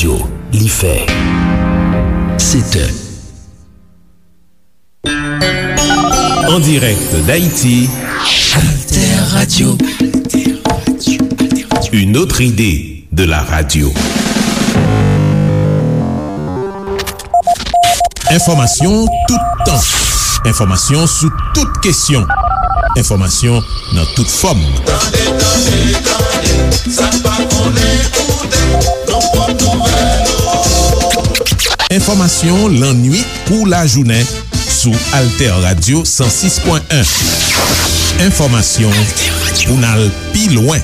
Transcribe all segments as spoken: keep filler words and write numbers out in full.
Li fè sèt è. En direct d'Haïti, Alter Radio. Une autre idée de la radio. Enfòmasyon toutan. Enfòmasyon sou tout kesyon. Enfòmasyon nan tout fòm. Tande, tande, tande, sa k pa konnen koute, nan pwòp nouvèl nou. Enfòmasyon lannuit kou lajounen sou Alter Radio san sis pwen en. Enfòmasyon pou n al pi lwen.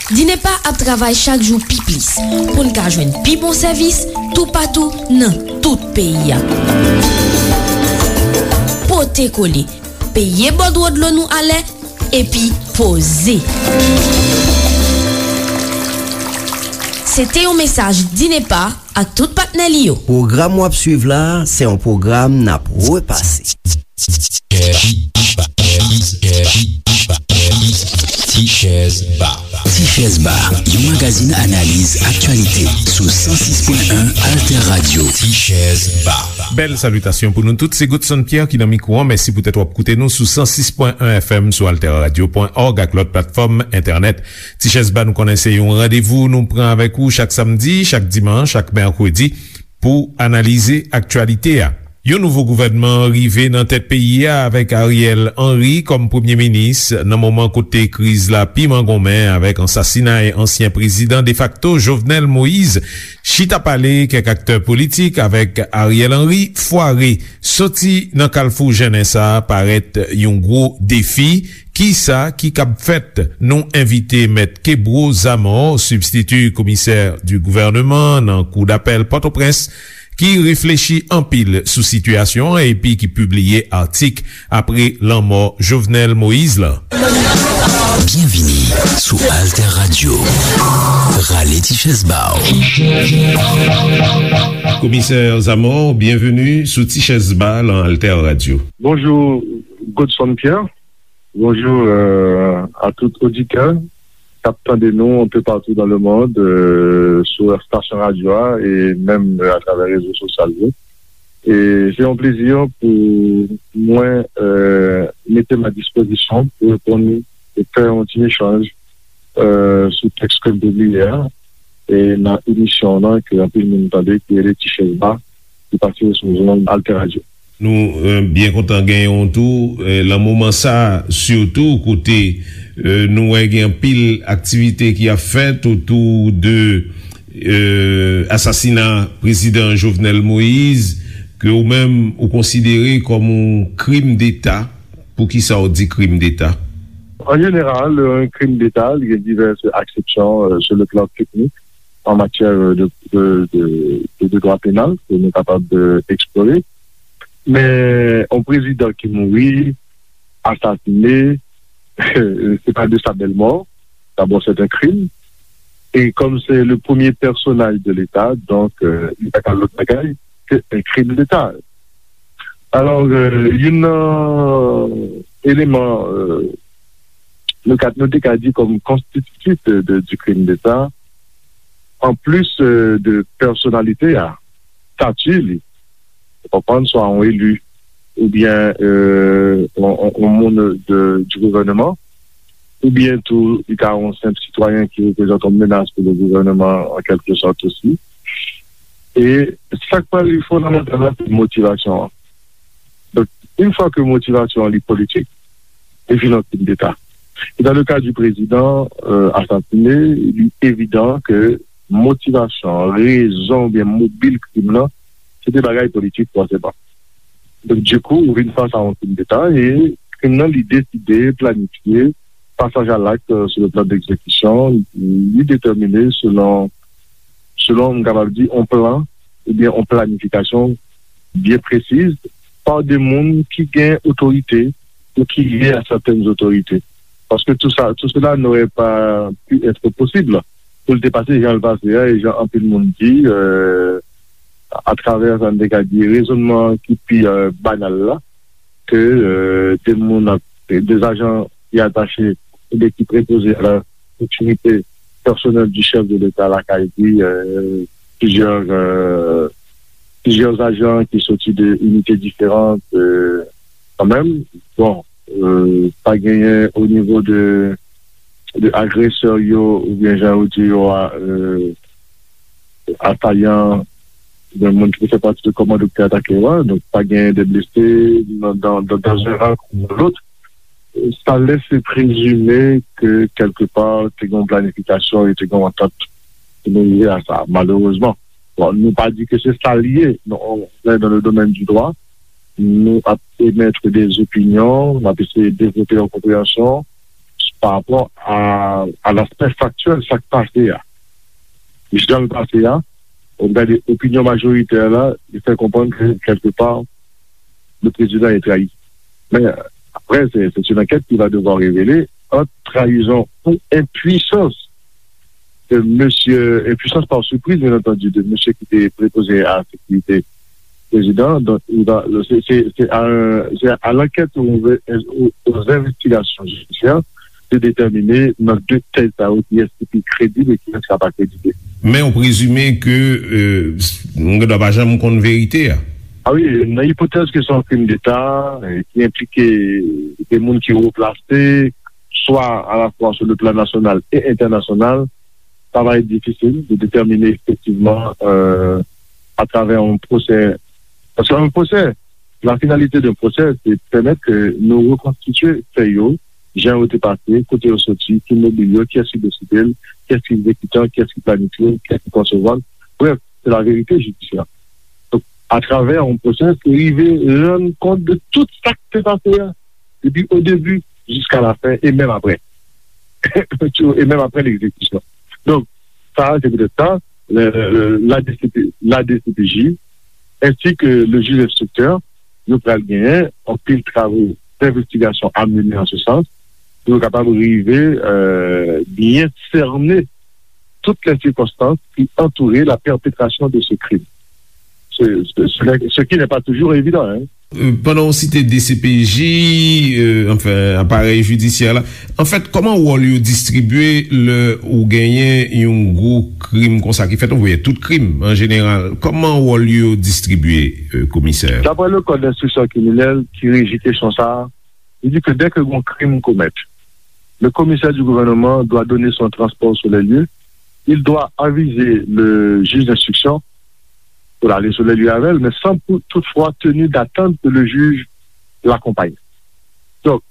Dinepa ap travay chak jou pi plis pou n ka jwenn pi bon sèvis toupatou nan tout peyi a. Pote kole, peye bòdwo dlo nou alè, epi poze. Se te yon mesaj Dinepa ak tout patnè li yo. Pwogram w ap swiv la a, se yon pwogram n ap repase. Tichèz Ba. Tichèz Ba, yon magazin analiz aktyalite sou san sis pwen en Alter Radio. Tichèz Ba. Bèl salitasyon pou nou tout. Se Godson Pierre ki nan mikwo an. Mèsi poutèt w ap koute nou sou san sis pwen en F M, sou alter radio pwen org ak lòt platfòm entènèt. Tichèz Ba, nou konnen se yon randevou nou pran avèk ou chak samdi, chak dimanch, chak mèkredi pou analize aktyalite a. Yon nouvo gouvènman rive nan tèt peyi a avèk Ariel Henry kòm premye minis nan moman kote kriz la pi mangonmen avèk ansasinay ansyen prezidan defakto Jovenel Moïse. Chita pale kèk aktè politik avèk Ariel Henry fware. Soti nan kalfou jennen sa a parèt yon gwo defi. Kisa ki kab fèt? Nou envite Mèt Kebro Zamor, sibstiti komisè di gouvènman nan Kou dapèl Pòtoprens, ki reflechi anpil sou sitiyasyon an epi ki pibliye atik apre lanmò Jovenel Moïse lan. Byenvini sou Alter Radio. Rale ti chèz ba w. Komisè Zamor, byenveni sou Ti Chèz Ba lan Alter Radio. Bonjou, Godson Pierre. Bonjou, euh, a tout oditè k ap tande nou un peu partout dans le monde, euh, sou estasyon radyo a e menm, euh, atravè rezo sosyal yo. E se yon plezi pou mwen, euh, mete m a dispozisyon pou reponn e fè yon ti echanj, euh, sou tèks ke m pibliye a, e nan emisyon an ke anpil moun tande, ki rele Ti Chèz Ba, ki pase sou zòn Alter Radio. Nou, euh, byen kontan genyen w tou, euh, lan moman sa a, sitou kote, euh, nou wè gen anpil aktivite ki ap fèt otou de, euh, asasina prezidan Jovenel Moïse, ke ou menm ou konsidere kòm yon krim deta. Poukisa w di krim deta? An jeneral, yon krim deta, li gen divès aksepsyon, euh, sur le plan technique, en matière de, de, de, de, de droit pénal, ke nou kapab, euh, eksplore. Men, yon prezidan ki mouri, asasine, se pa de sa bèl mò. D'abord, c'est un crime. Et comme c'est le premier personnage de l'État, donc, euh, li pa ka lòt bagay ke un crime d'État. Alò, euh, youn nan eleman, euh, nou ka, nou te ka di kòm konstititif de, de, du crime d'État, an plis, euh, de pèsonalite a, stati li, ou konprann, swa yon eli, oubyen, euh, yon, yon, yon moun de, du gouvènman, oubyen tou, li ka yon senp sitwayen ki reprezante yon menas pou le gouvènman, an kèlke sòt osi. E sa k pral fondamantal la, se motivasyon an. Donk, yon fwa ke motivasyon an li politik, li vin yon krim deta. E dans le cas du président, euh, assassiné, li evidan ke motivasyon, rezon oubyen mobil krim nan, se te bagay politik fòseman. Donk, dikou, ou vin fas a yon krim deta e krim nan li deside, planifye, pasaj a lakt, euh, sur le plan d'exécution, li detèmine selon, selon, m kapab di, yon plan oubyen yon planifikasyon byen presiz pa de moun ki gen otorite ou ki lye a sètèn otorite. Paske tout sa, tout cela n'aurait pas pu être possible pou l te pase jan l pase a, e jan anpil moun di, euh, atravè sa n te ka di rezònman ki pi, euh, banal la, ke, euh, de moun ap, de zajan ki atache oubyen ki prepoze a la sekirite pèsonèl di chèf de Leta lakay li, euh, plizyè, euh, plizyè ajan ki soti de inite diferan, euh, kanmenm. Bon, euh, pa genyen o nivo de, de agresè yo, oubyen jan yo di yo a, euh, asayan, oubyen moun ki fè pati de kòmando ki te atake yo a. Donk, pa genyen de blese nan, dans, dans, dans un ran ou dans l'autre. Sa lèse prezime ke kèlkepa te gen yon planifikasyon e te gen yon antant pou nou rive a sa, malerezman. Bon, nou pa di ke se sa l ye, non, on est dans le domaine du droit, nou ap emettre des opinions, nou ap eseye devlope yon konpreyansyon pa rapò a, a l'aspect factuel, sa k pase a. Jan l pase a, ou gade opinyon majoritè la, li fè konprann ke kèlkepa, le président est trahi. Mais après, c'est c'est une enquête qui va devoir révéler entre trahison ou impuissance de monsieur, impuissance par surprise, bien entendu, de monsieur qui était préposé à la sécurité président. Donc, il va, c'est c'est- c'est à, un- c'est à l'enquête aux, aux- aux investigations judiciaires de déterminer dans deux têtes ça qui est qui est crédible et qui ne sera pas crédible. Men ou prezime ke euh, nou gen dwa pa janm konn verite a. Ah oui, nan ipotèz ke se yon krim d'État, euh, ki enplike de moun ki wo plase, swa à la fois sur le plan national et international, ça va être difficile de déterminer effectivement euh, à travers un procès. Parce qu'un procès, la finalité d'un procès, c'est de permettre que nous reconstituer fait yo, jan yo te pase, kote yo soti, ki mobil yo, kiyès ki deside l, kiyès ki egzekitan, kiyès ki planifye l, kiyès ki konsevwa l. Bref, c'est la vérité judiciaire. Donc, à travers un procès, se rive rann kont de tout sa ki te pase a, depi o debi jiska la fen e menm apre. E menm apre l'exécution. Donc, ça, c'est peut-être ça, le- le- la, D C P, la D C P J, ainsi que le juge instructeur, yo pral genyen anpil travaux d'investigation à mener en ce sens, pou yo kapab rive euh, bien cerner toutes les circonstances qui entouraient la perpétration de ce crime. Ce, ce, ce n'est- ce qui n'est pas toujours évident. Hein. Euh, pandan w site D C P J, euh, anfen, aparèy jidisyè la, anfèt, kòman wòl yo distribye lè ou genyen yon gwo krim konsa ki fèt, ou voye tout krim an jeneral? Kòman wòl yo distribye, euh, komisè? D'après le code d'instruction criminelle qui régit question ça, il dit que dès que un crime commet, le commissaire du gouvernement doit donner son transport sur les lieux, il doit aviser le juge d'instruction pour aller sur les lieux avec elle, mais sans pou- toutefois tenir d'attendre que le juge l'accompagne. Donc,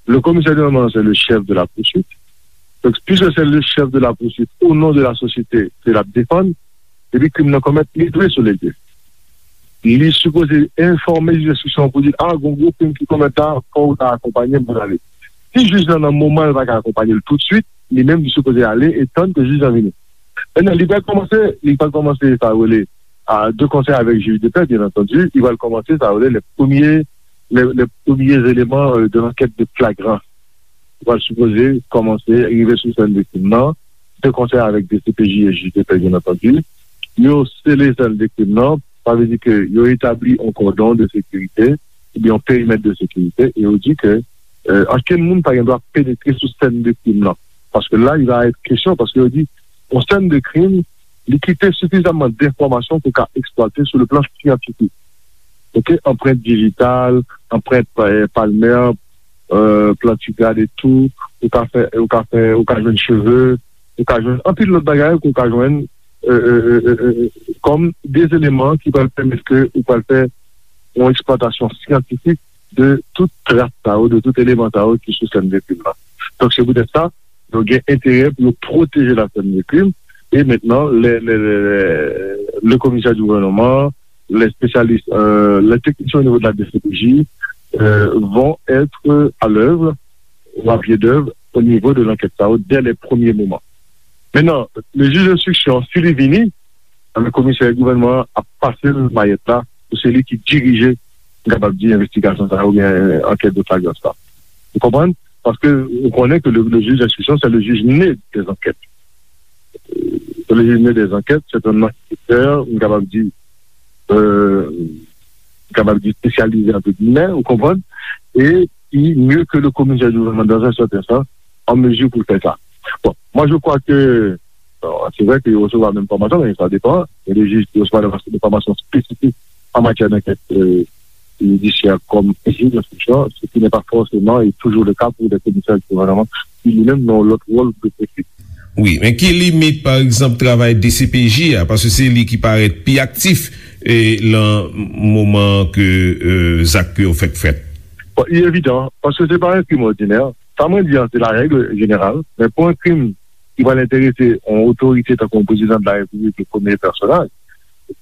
le commissaire du gouvernement, c'est le chef de la poursuite. Donc, puisque c'est le chef de la poursuite, au nom de la société, ke l ap defann, epi krim nan komèt, li dwe sou lye. Li sipoze enfòme jij enstriksyon pou di, a, gon gwo krim ki komèt la, fò ou ta akonpanye m pou n ale. Si jij lan nan moman l pa ka akonpanye l toutswit, li menm li sipoze ale e tann ke jij lan vini. Mentnan, li pral kòmanse, li pral kòmanse sa yo rele a, de concert avec juge de paix, bien entendu, li pral kòmanse sa yo rele les premiers, les, les premiers éléments euh, de l'enquête de flagrance. Li pral sipoze kòmanse rive sou sèn viktim nan, de concert avec D C P J et juge de paix, bien entendu. Yo sele sèn viktim nan, sa vle di ke yo etabli yon kòdon de sekirite, oubyen yon perimèt de sekirite, e yo di ke euh, ankenn moun pa gen dwa penetre sou sèn de krim nan. Paske la, il va être question, paske yo di, yon sèn de krim, li kite sifizamman denfòmasyon pou ka eksplwate sou le plan syantifik. Ok, anprent dijital, anprent euh, palmè, euh, plantigrad etou, ou ka fè, ou ka fè, ou ka jwenn cheve, ou ka jwenn anpil lòt bagay ke ou ka jwenn euh, euh, euh, euh, euh, kòm de eleman ki pral pèmèt ke ou pral fè yon eksplwatasyon syantifik de tout tras sa yo, de tout eleman sa yo ki sou sèn de krim nan. Donk, se poutèt sa, nou gen enterè pou nou pwoteje la sèn de krim. E mentnan, le, le, le, le, le komisè di gouvènman, les spécialistes, euh, les techniciens au niveau de la D C P J euh, vont être à l'œuvre ou à pied d'œuvre au niveau de l'enquête sa yo dès les premiers moments. Mentnan, le jij enstriksyon, si li vini, anben komisè gouvènman an ap pase l mayèt la pou se li ki dirije, m kapab di, envestigasyon sa yo oubyen ankèt de flagrans la. Ou konprann? Paske ou konnen ke le, le jij enstriksyon, se le jij ne dè ankèt. Se le jij ne dè ankèt, se yon anketè, m kapab di, euh, m kapab di espesyalize, entre guillemets, ou konprann? E ki mieux que le commissaire du gouvernement dans un certain sens, en mesure pour faire ça. Bon, moi je crois que, bon, c'est vrai que yo resevwa menm fòmasyon, men sa depan. Gen de jij ki resevwa de fòmasyon espesifik an matyè d'ankèt, euh, jidisyè kòm jij enstriksyon, ce qui n'est pas forcément et toujours le cas pour des commissaires du gouvernement, ki li menm nan lòt wòl de politik. Wi, men ki limit, pa egzanp, travay D C P J a, paske se li ki parèt pi aktif e lan moman ke, euh, zak yo fèk fèt. Bon, li evidan, paske se pa yon krim òdinè. Sa mwen di an, se la règle générale, men pou yon krim ki pral enterese yon otorite tankou yon prezidan de la Repiblik, le premye pèsonaj,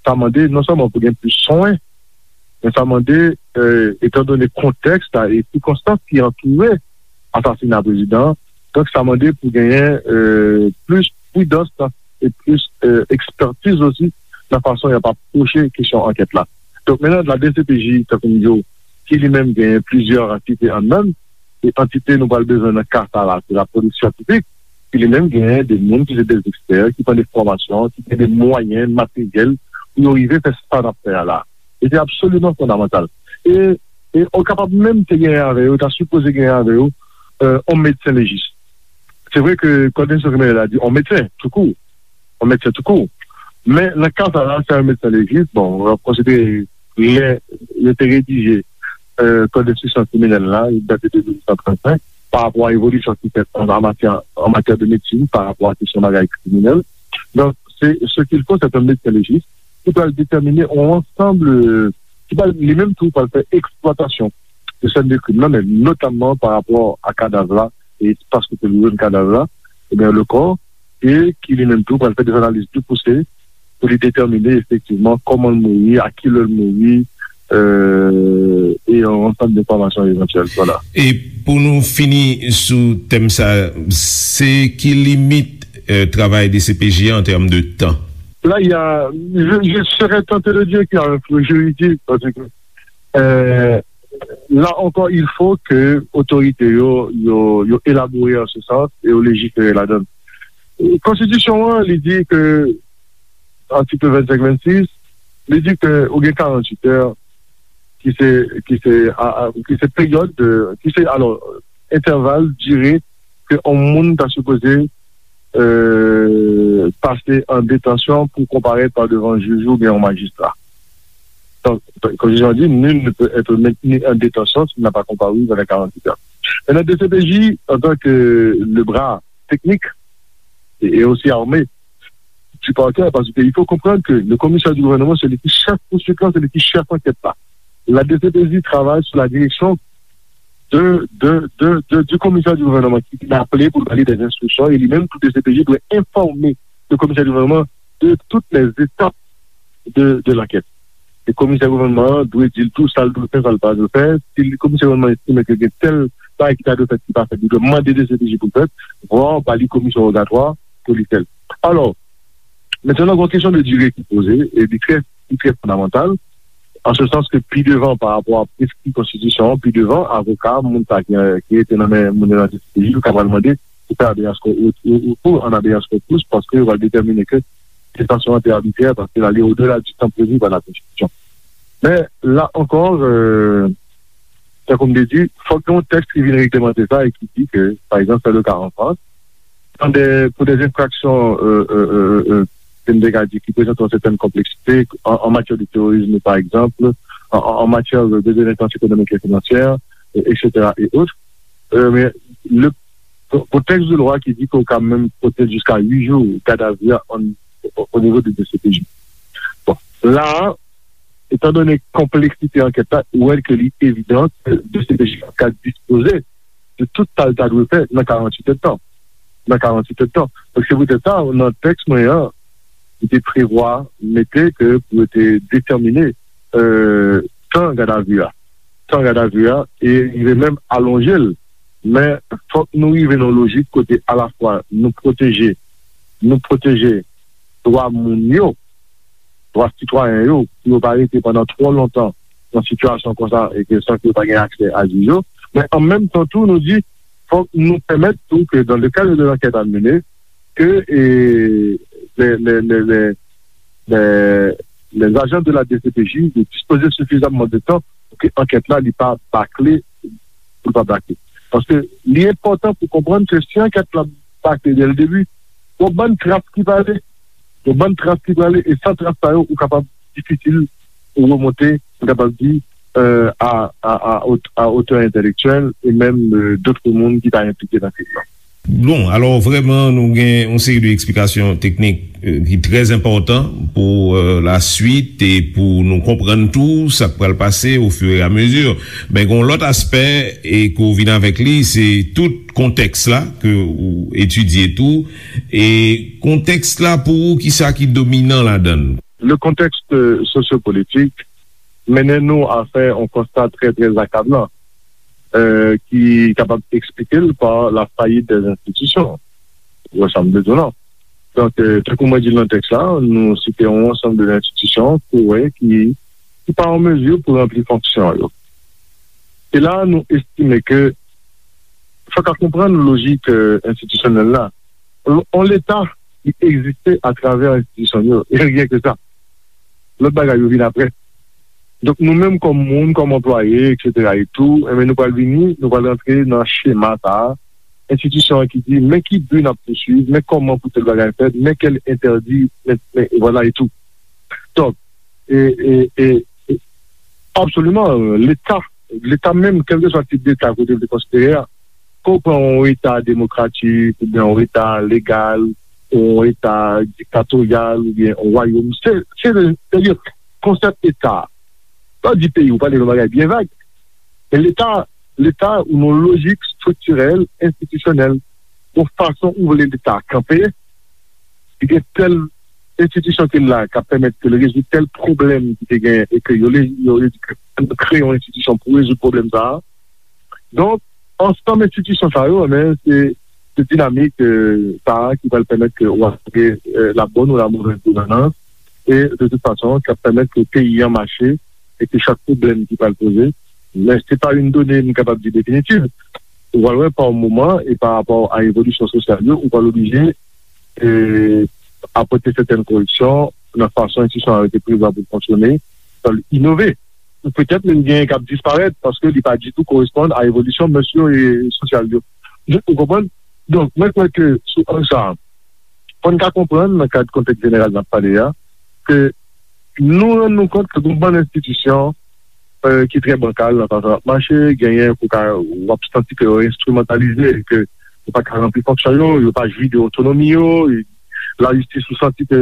sa mande non sèlman pou gen plis swen, men sa mande, euh, etan done kontèks la e sikonstans ki antoure asasina prezidan an, donk sa mande pou genyen, euh, plis pridans e plis, euh, ekspertiz osi nan fason y ap apwoche kesyon ankèt la. Donk, menm la D C P J, tankou m di w, ki li menm genyen plizyè antite anndan l, e antite nou pral bezwen nan ka sa la, se la polis syantifik, ki li menm genyen de moun ki se de ekspè, ki pran de fòmasyon, ki gen de mwayen materyèl pou yo rive fè sa n ap fè a la. E se absoliman fondamantal. E, e ou kapab menm te genyen avè yo, ta sipoze genyen avè yo, euh, yon medsen lejis. Se vre ke kòd enstriksyon kriminèl la di yon medsen, toukou, yon medsen toukou. Men nan ka sa la, se yon medsen lejis, bon, w ap konsidere lè yo te redije, euh, kòd enstriksyon kriminèl la, li date de mil nèf san trannsenk, pa rapò a evolisyon ki fèt an, an matyè, an matyè de medsin, pa rapò a kesyon bagay kriminèl. Donk, se, ce qu'il faut, c'est un médecin légiste qui pral déterminer un ensemble, euh, ki pral, li menm tou, pral fè eksplwatasyon de sèn de krim nan, men notamman pa rapò a kadav la, e espas kote yo jwenn kadav la, ebyen, le kò, e ki li menm tou pral fè de analiz pli pouse pou li detèmine efektivman kòman l mouri, a ki lè l mouri, euh, e yon ansanm de enfòmasyon evantyèl. Vwala. E pou nou fini sou tèm sa, se ki limit, euh, travay D C P J an tèm de tan? Là, il y a, je, je serais tenté de dire qu'il y a un flou juridique, parce que, euh, là encore, il faut que otorite yo, yo, yo elabore an se sans e yo lejifere ladan l. Konstitisyon an, li di ke, atik vennsenk vennsis, li di ke ou gen karannwit è, ki se, ki se, a, a, ki se peryòd de, ki se, alò, entèval, dire ke yon moun ta sipoze, euh, pase an detansyon pou konparèt pa devan jij oubyen yon majistra. Donk, konstitisyon an di, nul ne peut être maintenu en détention s'il n'a pas comparu dans les quarante-huit heures. Maintenant, D C P J, en tant que le bras technique et, et aussi armé du parquet, parce qu'il faut comprendre que le commissaire du gouvernement, c'est lui qui chef poursuivant, c'est lui qui chef enquête là. La D C P J travaille sous la direction de, de, de, de, du commissaire du gouvernement qui l'appelait pour donner des instructions et lui-même, tout D C P J doit informer le commissaire du gouvernement de toutes les étapes de, de l'enquête. E komisè gouvènman an dwe di l tou sa l dwe fè, sa l pa dwe fè. Si komisè gouvènman estime ke gen tèl bagay ki ta dwe fèt ki pa fèt, li dwe mande D C P J pou l fèt, vwa ba li komisyon wogatwa pou li fè l. Alò, mentnan, gen yon kesyon de dire ki poze, e li trè, li trè fondamantal, an se sans ke pi devan, pa rapò a preskri konstitisyon an, pi devan, avoka, moun sa ki, ki rete nan men moun yo nan D C P J, yo ka pral mande pou fè habeas corpus, ou, ou, ou an habeas corpus, paske yo pral detèmine ke detasyon an te abitrè, paske l ale odela di tan previ pa la Konstitisyon. Men, la ankò, euh, tankou m te di, fòk gen yon tèks ki vin reglemante sa e ki di ke, pa egzanp, se le ka an Frans, dans des, pour des infractions, euh, euh, euh, euh, ke m te ka di, ki prezante yon sètèn konpleksite, an, an matyè de terorizm, pa egzanp, an, an, an matyè de, de delenkans ekonomik e finansyè, e, et cetera, et autres. Euh, men, le, pou, pou tèks de lwa ki di ke w ka menm pote jiska uit jou gadavi a an, o, o nivo de D C P J. Bon, la a, etan done konpleksite ankèt la, ou wè ke li evidan ke D C P J ka dispoze de tout sa l ta dwe fè nan karannwit èdtan. Nan karannwit èdtan. Donk, se poutèt sa, nan tèks mwen an, li te prevwa mete ke pou yo te detèmine, euh, tan gadavi a. Tan gadavi a, e rive menm alonje l. Men, fòk nou rive nan lojik kote alafwa nou pwoteje, nou pwoteje dwa moun yo, dwa sitwayen yo, pou yo pa rete pandan twò lontan nan sitiyasyon konsa e ke san ke yo pa gen aksè a jij yo. Men an menm tan tou, nou di, fòk nou pèmèt tou ke dans le cadre de l'enquête à mener, ke, e, les, les, les, les, les, les agents de la D C P J de dispoze sifizamman de tan pou ke ankèt la, li pa bakle, pou l pa bakle. Paske li enpòtan pou konprann ke si ankèt la pa ke dè l debi. Yon bann tras ki prale. Yon bann tras ki prale, e san tras sa yo, ou kapab difisil ou remonte, m kapab di, euh, a, a, a, ot- a otè entèlektyèl e menm euh, dòt moun ki ta enplike nan kriz la. Bon, alò, vrèman, nou gen yon seri de eksplikasyon teknik euh, ki trè enpòtan pou euh, laswit e pou nou konprann tou sa k pral pase au fur et à mesure. Men gen yon lòt aspè e ke w vin avèk li, se tout kontèks la ke w etidye tou. E kontèks la pou ou, kisa ki dominan ladan l? Le contexte sociopolitique mennen nou a fè yon konsta trè, trè akablan, euh, ki kapab eksplike l pa la fayit dè enstitisyon. Ou wè sa m vle di w la? Donk, euh, tankou mwen di l nan tèks la, nou site yon ansanm de enstitisyon ke w wè ki, ki pa an mezi pou ranpli fonksyon yo. E la, nou estime ke fòk a konprann lojik euh, enstitisyonèl la. On Leta ki egziste atravè enstitisyon yo, e ryen ke sa. Lòt bagay yo vin apre. Donk, nou menm kòm moun, kòm anplwaye, etsetera e tou, enben, nou pral vini, nou pral rantre nan chema sa a. Enstitisyon an ki di, men ki bi n ap pouswiv, men kòman pou tèl bagay fèt, men kèl entèdi, men, men, e vwala e tou. Donk, e, e, e, e, absoliman, Leta, Leta menm, kèlkeswa tip Leta kote l te konsidere a, ke w pran yon Eta demokratik, oubyen yon Eta legal, yon Eta diktatoryal, oubyen yon wayòm, se, se, se, se konsèp Eta. Lè w di peyi, ou pale yon bagay byen vag. Men Leta, Leta, ou nan lojik estriktirèl, enstitisyonèl, yon fason ou vle Leta a kanpe, li gen tèl enstitisyon ki la k ap pèmèt ke l rezoud tèl pwoblèm ki te gen e ke yo le- yo yo di ke nou kreye yon enstitisyon pou rezoud pwoblèm sa a. Donk, ansanm enstitisyon sa yo, men, se, se dinamik euh, sa a ki pral pèmèt ke w ap gen euh, la bonne ou la mauvaise gouvernance e de tout fason, k ap pèmèt ke peyi an mache e ke chak pwoblèm ki pral poze, men se pa yon done m kapab di definitiv. Ou pral wè pa yon moman e pa rapò a evolisyon sosyal yo, ou pral oblije e, apòte sètèn koreksyon nan fason enstitisyon an rete prevwa pou l fonksyone, pou l inove. Ou petèt menm gen k ap disparèt paske li pa ditou koresponn a evolisyon mès yo e sosyal yo. Ou konprann? Donk, mwen kwè ke sou ang sa a, fò n ka konprann nan kad kontèks jeneral n ap pale a, ke nou rann nou kont ke gon bann enstitisyon euh, ki trè bankal nan fason y ap mache, genyen pou ka w ap santi ke yo enstrimantalize, ke yo pa ka ranpli fonksyon yo, yo pa jwi de otonomi yo, lajistis ou santi ke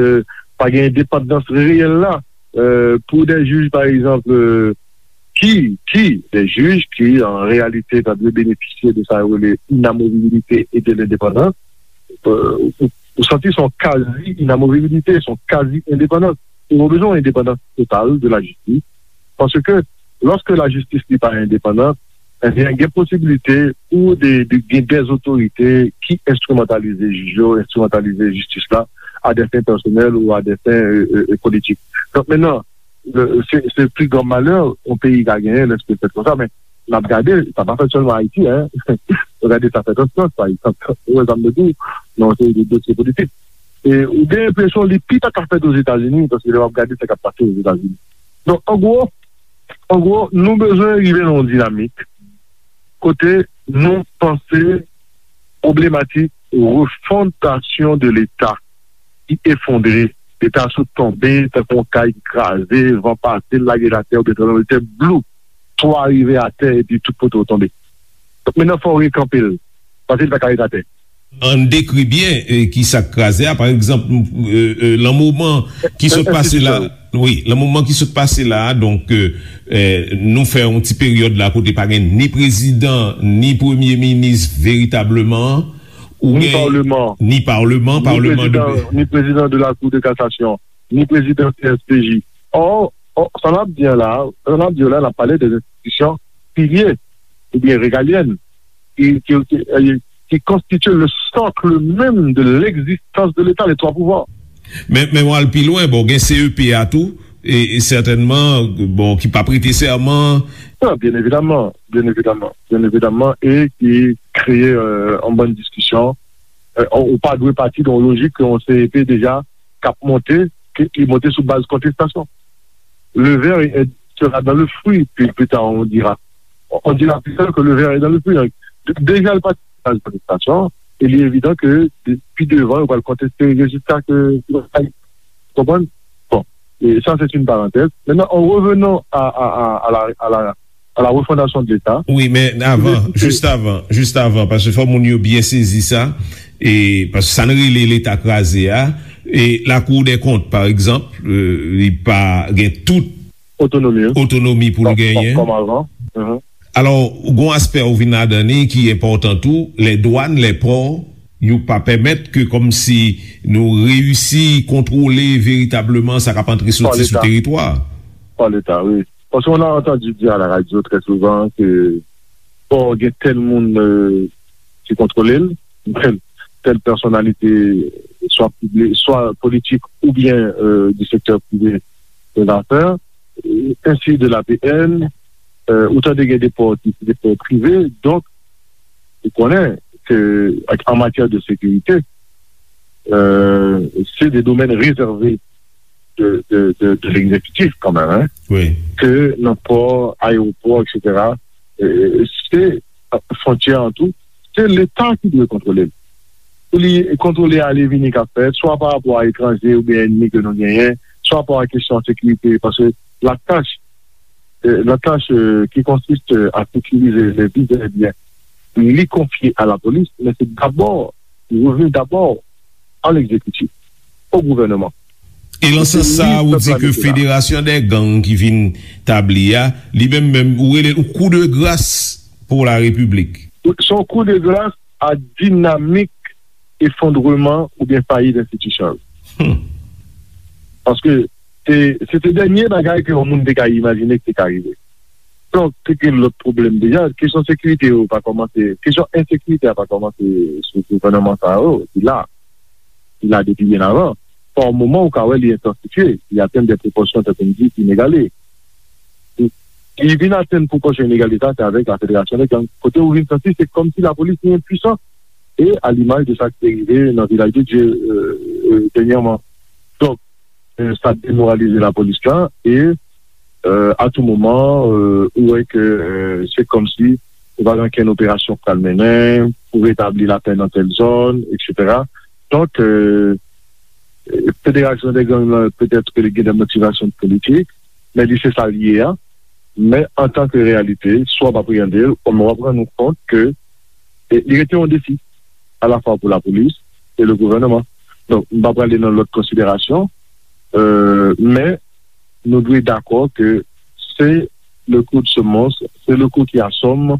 pa gen endepandans reyèl la euh, pou de jij pa egzanp euh, ki, ki de jij ki an reyalite ta dwe benefisye de sa yo rele inamovibilite e de lendepandans, euh, ou, ou santi se yon kazi inamovibilite, se yon kazi endepandans. Ou bezwen yon endepandans total de lajistis. Paske lòske lajistis li pa endepandan, ebyen, gen posibilite pou de, de, gen dèzotorite ki enstrimantalize jij yo, enstrimantalize jistis la a dè fen pèsonèl ou a dè fen euh, euh, politik. Donk, mentnan, se, se pi gran malè yon peyi ka genyen lè sa fèt konsa, men n ap gade, sa pa fèt sèlman Ayiti, en. N ap gade sa fèt an Frans, pa egzanp. Ou wè sa m vle di w, nan yon seri de dosye politik. E ou gen enpresyon li pi ta ka fèt Ozetazini, paske lè w ap gade sa k ap pase Ozetazini. Donk, an gwo, an gwo, nou bezwen rive nan yon dinamik kote nou panse pwoblematik refondasyon de Leta ki efondre, Leta sot tonbe tankou yon kay ki kraze, van pase l lage l atè oubyen tranblemanntè, blou, twa rive atè epi tout kote w tonbe. Donk, mentnan fò w rekanpe l, paske l pa ka ret atè. Ann dekri byen eh, ki sa k kraze a. Pa egzanp, eh, eh, lan moman ki sot pase la, wi, lan moman ki sot pase la a, donk, eh, eh, nou fè yon ti peryòd la kote pa gen ni prezidan, ni premye minis veritableman, ou Ni gen paleman. Ni paleman, Ni paleman de prezidan, ni prezidan de la Cour de cassation, ni prezidan C S P J. Or, or, sa n ap di an la, sa n ap di an la, n ap pale de enstitisyon pilye oubyen regalyèn ki, ki, ki, eh, ki konstitye le socle même de l'existence de l'État, les trois pouvoirs. Men, men w al pi lwen, bon, gen C E P a tou, e, e sètènman, bon, ki pa prete sèman. Non, byen evidaman, byen evidaman, byen evidaman, e ki kreye euh, yon bann diskisyon. Euh, ou pa dwe pati de yon lojik ke yon C E P deja k ap monte, ki, ki monte sou baz kontestasyon. Le ver est- sera dans le fruit, puis plus tard on dira. On dira plus tard que le ver est dans le fruit. Deja l pati sou baz kontestasyon, E li evidan ke de- pi devan, yo pral konteste rezilta ke yo bay. Konprann? Bon, e sa, se yon parantèz. Maintenant, en revenant à, à, à, à la, à la, à la refondation de l'État. Wi, men avan, jis avan, jis avan, paske fò moun yo byen sezi sa, e paske sa n rele Leta kraze a, e Lakou dè Kont, pa egzanp, euh, li pa gen tout otonomi, wi, otonomi pou l genyen. Kòm avan. Mhm. Alò, gon aspè ou vin ladan li ki enpòtan tou, lè dwàn, lè pò, yo pa pèmèt ke kòmsi nou reyisi kontwole veritableman sa k ap antre soti sou teritwa. Pa Leta, wi. Parce qu'on a entendu dire à la radio très souvent que pò gen tèl moun euh, ki kontwole l, tèl, tèl pèsonalite, swa piblik, swa politik oubyen euh, du secteur privé de l'affaire, euh, ainsi de l'A P N, euh, ou tande gen de pò ki se de pò prive, donk, ou konnen ke an matyè de sekirite, euh, se de domèn rezève de, de, de, de l'exécutif kanmenm, hein, wi, ke nan pò, ayewopò, et cetera, euh, se fwontyè an tou, se Leta ki dwe kontwole l. Pou li kontwole ale vini k ap fèt, swa pa rapò a etranje oubyen ènmi ke nou genyen, swa pa a kesyon sekirite, paske la tâche, euh, la tâche euh, qui consiste à sécuriser les biens et les biens, li konfye a la polis, men se dabò, li revni dabò a l'exécutif, au gouvernement. E nan sans sa, ou di ke federasyon dè gang ki vin tabli a, li menm menm, ou rele l yon kou de gras pou la repiblik. Se yon kou de gras a dinamik efondreman oubyen fayit enstitisyon yo. Hmm. Paske se, se te dènye bagay ke yon moun te ka imajine ki te ka rive. Donk, se te lòt pwoblèm deja. Kesyon sekirite yo pa kòmanse, kesyon ensekirite a pa kòmanse sou gouvènman sa yo, li la. Li la depi byen avan. Pa yon moman, ou ka wè li entansifye, li atenn de pwopòsyon, tankou m di, inegale. Li vin atenn pwopòsyon inegale sa, se avèk la federasyon de gang. Kote ou vin santi, se kòmsi lapolis li enpwisan. E a limaj de sa ki te rive nan Vilaj de Dye euh, euh, dènyèman. Donk, euh, sa demoralize lapolis la e euh, a tou moman, euh, ou wè ke euh, se kòmsi ou pa gen okenn operasyon k pral mennen pou retabli lapè nan tèl zòn, et cetera. Donk, euh, federasyon de gang lan, petèt ke li gen de motivasyon politik, men li se sa l ye a. Men antanke reyalite, si w ap apreyande l, w ap rann ou kont ke e, li rete yon defi, alafwa pou lapolis e le gouvènman. Donk, m pa prale nan lòt konsiderasyon, euh, men nou dwe dakò ke c'est le coup de semonce, c'est le coup qui assomme,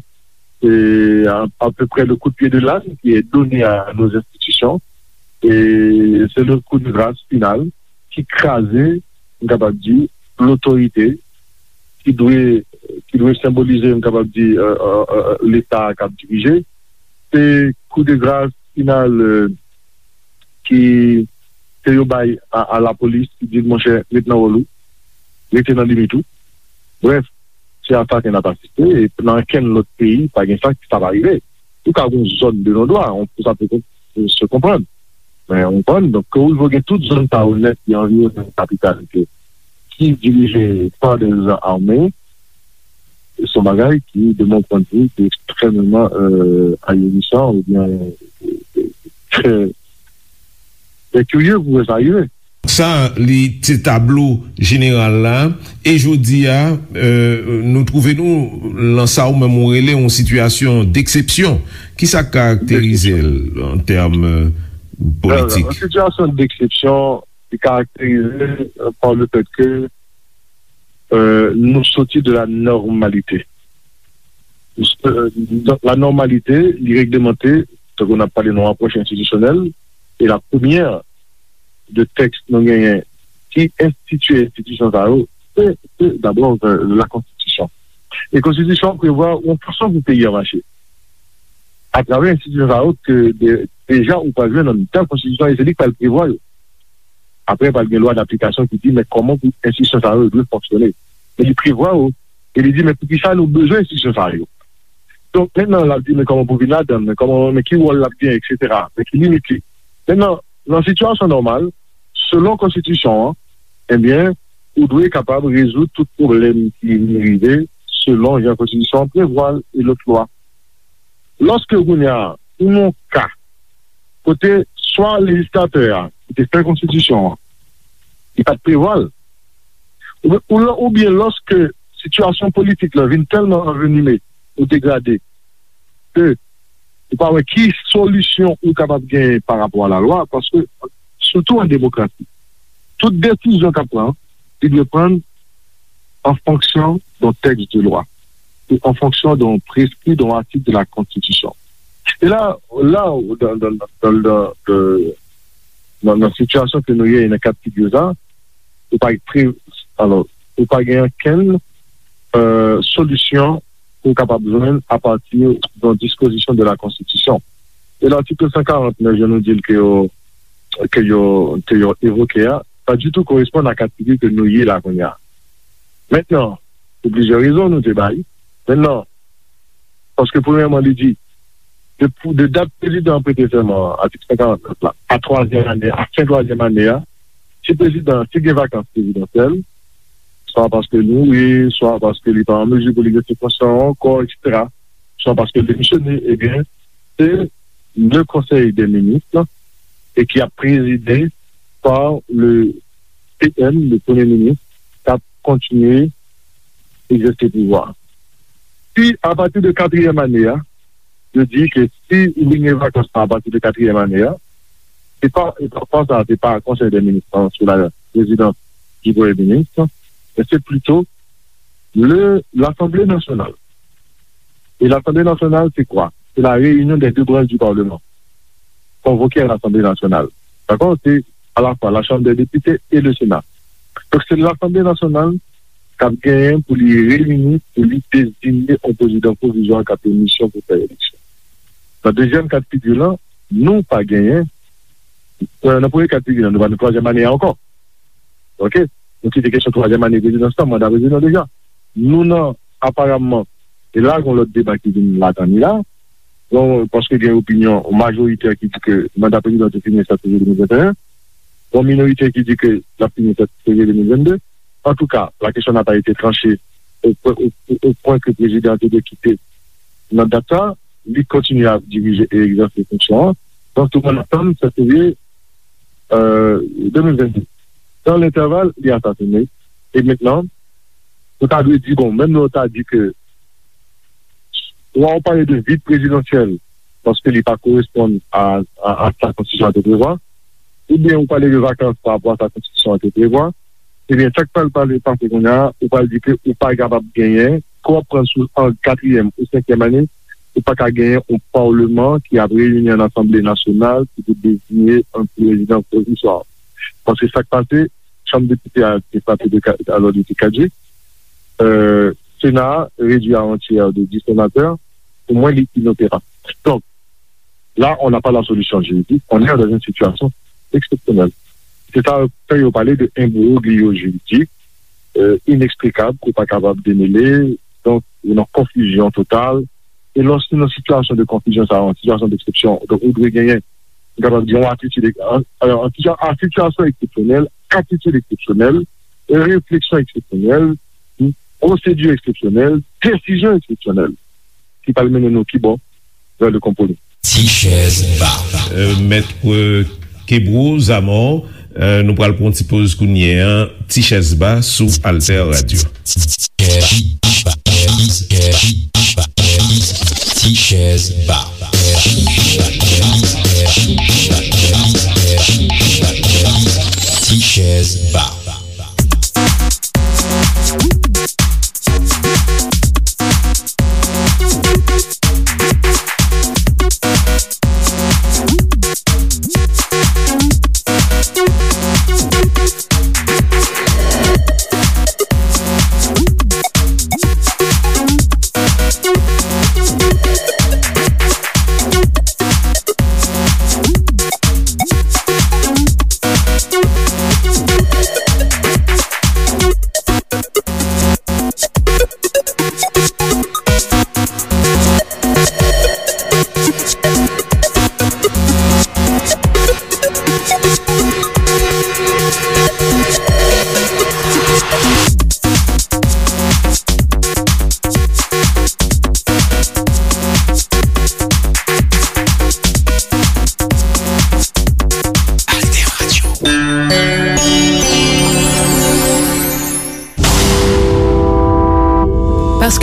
c'est à, à peu près le coup de pied de l'âne qui est donné à nos institutions, et c'est le coup de grâce final ki kraze, m kapab di, lotorite ki dwe, ki dwe senbolize, m kapab di, euh, euh, euh, Leta k ap dirije. Se kou de gras final euh, ki ke yo bay a, a lapolis, ki di l, monchè, ret nan wòl ou, rete nan limit ou. Brèf, se a sa ke n ap asiste, e nan okenn lòt peyi, pa gen sa, sa pa rive. Ou ka gen yon zòn de non-dwa, on, sa pe kon- se konprann. Men, ou konprann, donk, ke ou rive gen tout zòn sa yo nèt ki anviwonnen kapital ke, ki dirije pa de zam ame, se yon bagay ki, de mon point de vue, ki ekstrèmeman euh, ahurissant oubyen euh, trè, trè kirye pou wè sa rive. Sa, li se tablo jeneral la. E jodi a, euh, nou twouve nou lan sa ou menm ou rele yon sitiyasyon deksepsyon. Kisa k karakterize l an tèm euh, politik? Yon sitiyasyon deksepsyon ki karakterize euh, pa le fèt ke euh, nou soti de la nòmalite. Euh, la nòmalite, li reglemante, tankou n ap pale nan apwòch enstitisyonèl, e la premyè de tèks nou genyen ki enstitye enstitisyon sa yo, se, se dabò euh, la konstitisyon. E konstitisyon an prevwa yon fason pou peyi a mache. Atravè enstitisyon sa yo, ke de, deja ou pral jwenn nan mitan konstitisyon, e se li k pral prevwa yo. Apre, pral gen lwa daplikasyon ki di, men kòman pou enstitisyon sa yo dwe fonksyone. Men li prevwa yo, e li di, men poukisa nou bezwen enstitisyon sa yo? Donk, mentnan, l ap di, men kòman pou vin ladan l, men kòman, men ki wòl l ap genyen, et cetera. Men ki limit li. Mentnan, nan sitiyasyon nòmal, selon konstitisyon an, ebyen, ou dwe kapab rezoud tout pwoblèm ki vin rive selon jan konstitisyon an prevwa l e lòt lwa. Lòske kounye a, ou nan yon ka, kote swa lejislatè a ki te fè konstitisyon an, li pa t prevwa l, oubyen, oubyen lòske sitiyasyon politik la vin tèlman anvenime ou degrade ke ou pa wè ki solisyon ou kapab genyen pa rapò a lalwa, paske, sitou an demokrasi, tout desizyon k ap pran, li dwe pran an fonksyon d'un texte de loi, e an fonksyon d'un prescrit, d'un article de la Constitution. E la, la, dans, dans, dans, dans, dans, nan, nan sitiyasyon ke nou ye, nan ka figi sa, ou pa pre, alò, ou pa gen okenn, euh, solisyon ke w kapab jwenn apati de yon dispozisyon de la Konstitisyon. E latik san karant nèf, jan nou di l ke yo, ke yo, ke yo evoke a, pa ditou koresponn a ka figi ke nou ye la kounye a. Mentnan, pou plizyè rezon nou te bay. Mentnan, paske premyèman, li di, de, de dat prezidan an prete sèman an, atik san karant nèf la, a twazyèm ane, a fen twazyèm ane a, si prezidan, si gen vakans prezidansyèl, swa paske li mouri, swa paske li pa an mezi pou li egzèse fonksyon an ankò, etsetera, swa paske l demisyone, ebyen, se le Conseil des ministres, e ki ap prezide par le P M, le Premye Minis, k ap kontinye egzèse pouvwa. Si, apati de katriyèm ane a, yo di ke si ou vin gen vakans lan apati de katriyèm ane a, se pa, e pa, pa sa, se pa Conseil des ministres, hein, sous la présidence du Premier ministre, mais c'est plutôt le, l'Assemblée nationale. Et l'Assemblée nationale, c'est quoi? C'est la réunion des deux branches du Parlement convoquées à l'Assemblée nationale. D'accord? C'est à la fois la Chambre des députés et le Sénat. Donc, c'est l'Assemblée nationale k ap genyen pou li reyini, pou li deziye yon prezidan pwovizwa k ap gen misyon pou fè eleksyon. Nan dezyèm ka de figi la, nou pa genyen, euh, nan premye ka de figi la, nou pa nan twazyèm ane a ankò. Oke? Nou kite kesyon twazyèm ane prezidans lan, manda prezidan deja. Nou nan, aparamman, e la, gen lòt deba ki vin ladan li la. Bon, paske gen opinyon majorite ki di ke manda prezidan te fini sèt fevriye de mil venteyen. Bon, minorite ki di ke l ap fini sèt fevriye de mil vennde. Antouka, la question n'a pas été tranchée au, au, au, au point que prezidan an te dwe kite nan dat sa. Li kontinye ap dirije e egzèse fonksyon an. Donk, tout moun atann sèt fevriye, euh, de mil vennde. Dans l'intervalle, li asasine. E mentnan, nou ta dwe di, bon, menm lè w ta di ke, swa w pale de vid prezidansyèl, paske li pa koresponn a, a, a sa konstitisyon an te prevwa, oubyen ou pale de vakans pa rapò a sa konstitisyon an te prevwa, ebyen, sa k pral pale, pase kounye a, ou pral di ke ou pa kapab genyen, ke w ap pran sou an katriyèm ou senkyèm ane, ou pa ka genyen yon palman ki ap reyini an Asanble Nasyonal ki pou deziye yon prezidan pwovizwa. Paske sa k pase, Chanm Depite a te frape de ka-, alò, li te kadjik. Euh, Sena a redui a yon tyè de dis senatè. Pou mwen, li inoperab. Donk, là, on n'a pas la solution juridique, on est dans une situation exceptionnelle. Se sa fè yo pale de imbroglio juridik, euh, ineksplikab, ke w pa kapab demele. Donk, ou nan konfizyon total. E lòske nan sitiyasyon de konfizyon sa, yon sitiyasyon deksepsyon, donk, ou dwe genyen, ou kapab di, yon atitid, an, an, an sitiyasyon eksepsyonèl, atitid eksepsyonèl, refleksyon eksepsyonèl, pwosedi eksepsyonèl, desizyon eksepsyonèl ki pral mennen nou ki bò? Vè le konpwomi. Ti chèz ba. Euh, Mèt, euh, Kebro Zamò, euh, nou pral pran ti poz kounye a. Ti chèz ba sou Alter Radio. Ti chèz ba. Ti chèz ba.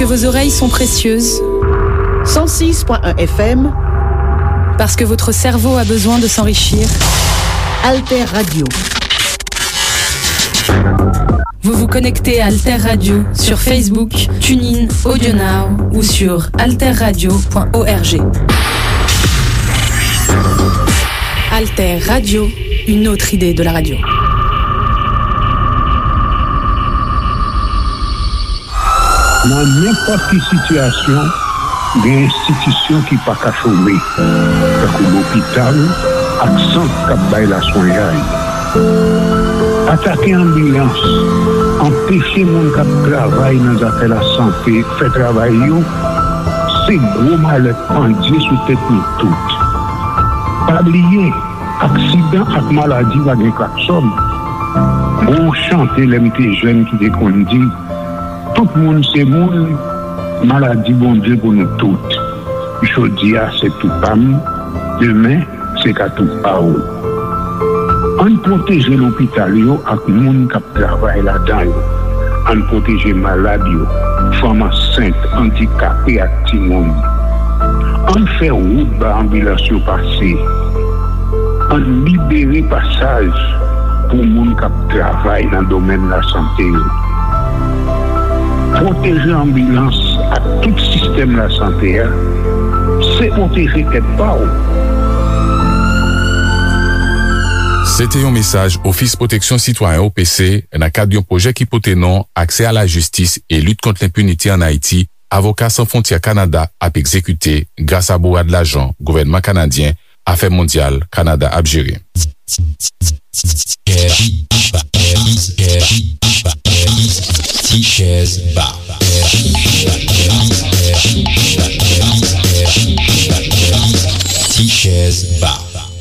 Vos oreilles sont précieuses. Cent six point un F M. Parce que votre cerveau a besoin de s'enrichir. Alter Radio. Vous vous connectez à Alter Radio sur Facebook, TuneIn, AudioNow ou sur alterradio point org. Alter Radio, une autre idée de la radio. Nan nenpòt ki sitiyasyon, gen enstitisyon ki pa ka chome, tankou lopital ak sant k ap bay laswenyay. Atake anbilans, anpeche moun k ap travay nan zafè lasante fè travay yo, se gwo malè pandye sou tèt nou tout. Pa bliye, aksidan ak maladi pa gen klaksòn. Gon chante lè m te jèn ki te konn di, tout moun se moun, maladi Bondye pou nou tout. Jodi a se tou pa m, demen se ka tou pa w. Ann pwoteje lopital yo ak moun k ap travay ladan yo. Ann pwoteje malad yo, fanm ansent, andikape ak timoun. Ann fè wout ba anbilans yo pase. Ann libere pasaj pou moun k ap travay nan domèn lasante yo. Pwoteje anbilans ak tout sistèm lasante a, se pwoteje tèt pa w. Se te yon mesaj Ofis Pwoteksyon Sitwayen, O P C, nan kad yon pwojè ki pote non Aksè a la jistis e lit kont lenpinite ann Ayiti, Avoka San Fwontyè Kanada ap egzekite gras a bourad lajan gouvènman kanadyen Afè Mondyal Kanada ap jere. Ti chèz ba. Ti chèz ba.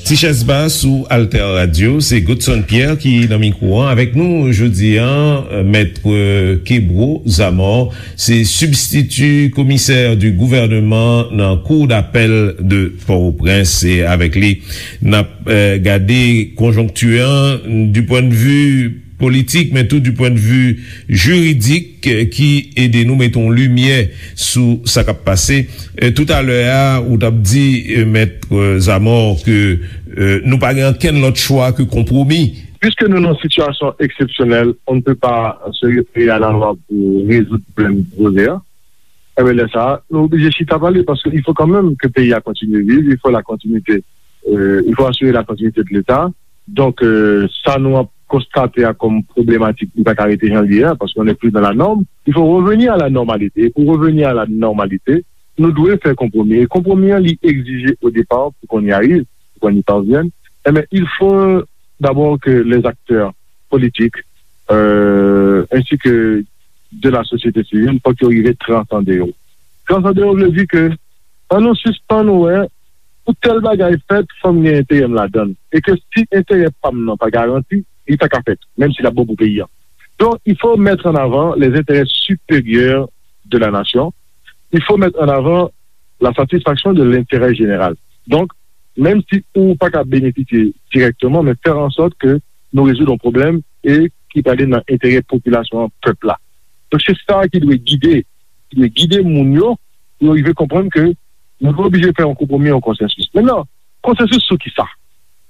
Ti chèz ba sou Alter Radio, se Godson Pierre ki nan mikwo an. Avèk nou jodi a, Mèt Kebro Zamor, se sibstiti komisè di gouvèneman nan Cour d'appel de Port-au-Prince. E avèk li, n ap, eh, gade konjonkti an du point de vue politik, men tou du point de vue jiridik, eh, ki ede nou mete yon limyè sou sa k ap pase. Eh, toutalè a, ou t ap di, eh, Mèt, eh, Zamor, ke, eh, nou pa gen ankenn lòt chwa ke konpwomi. Puiske nou nan sitiyasyon eksepsyonèl, on ne peut pas se référer à la loi pour résoudre problème posé a. Enben, lè sa a, nou oblije chita pale, paske il faut quand même que peyi a kontinye viv, il faut la continuité, euh, il faut assurer la continuité de l'État. Donk, euh, sa nou ap konstate a kòm pwoblematik, li pa ka rete jan l ye a, paske on n'est plus dans la norme. Il faut revenir à la normalité. Et pour revenir à la normalité, nou dwe fè konpwomi. E konpwomi an, li egzije au départ, pour qu'on y arrive, pour qu'on y parvienne, eh bien, il faut d'abord que les acteurs politiques, euh, ainsi que de la société civile, fòk yo rive transande yo. Transande yo vle di ke, ann nou sispann wè pou tèl bagay fèt, fò m gen enterè m ladan l. E ke si enterè pa m nan pa garanti, li pa ka fèt, menm si l ap bon pou peyi a. Donc, il faut mettre en avant les intérêts supérieurs de la nation. Il faut mettre en avant la satisfaction de l'intérêt général. Donc, menm si ou pa ka benefisye dirèkteman, men fè an sòt ke nou rezoud yon pwoblèm e ki prale nan enterè popilasyon an, pèp la. Donk, se sa ki dwe gide, ki dwe gide moun yo, pou yo rive konprann ke nou oblije fè yon konpwomi, yon konsansis. Mentnan, konsansis sou ki sa?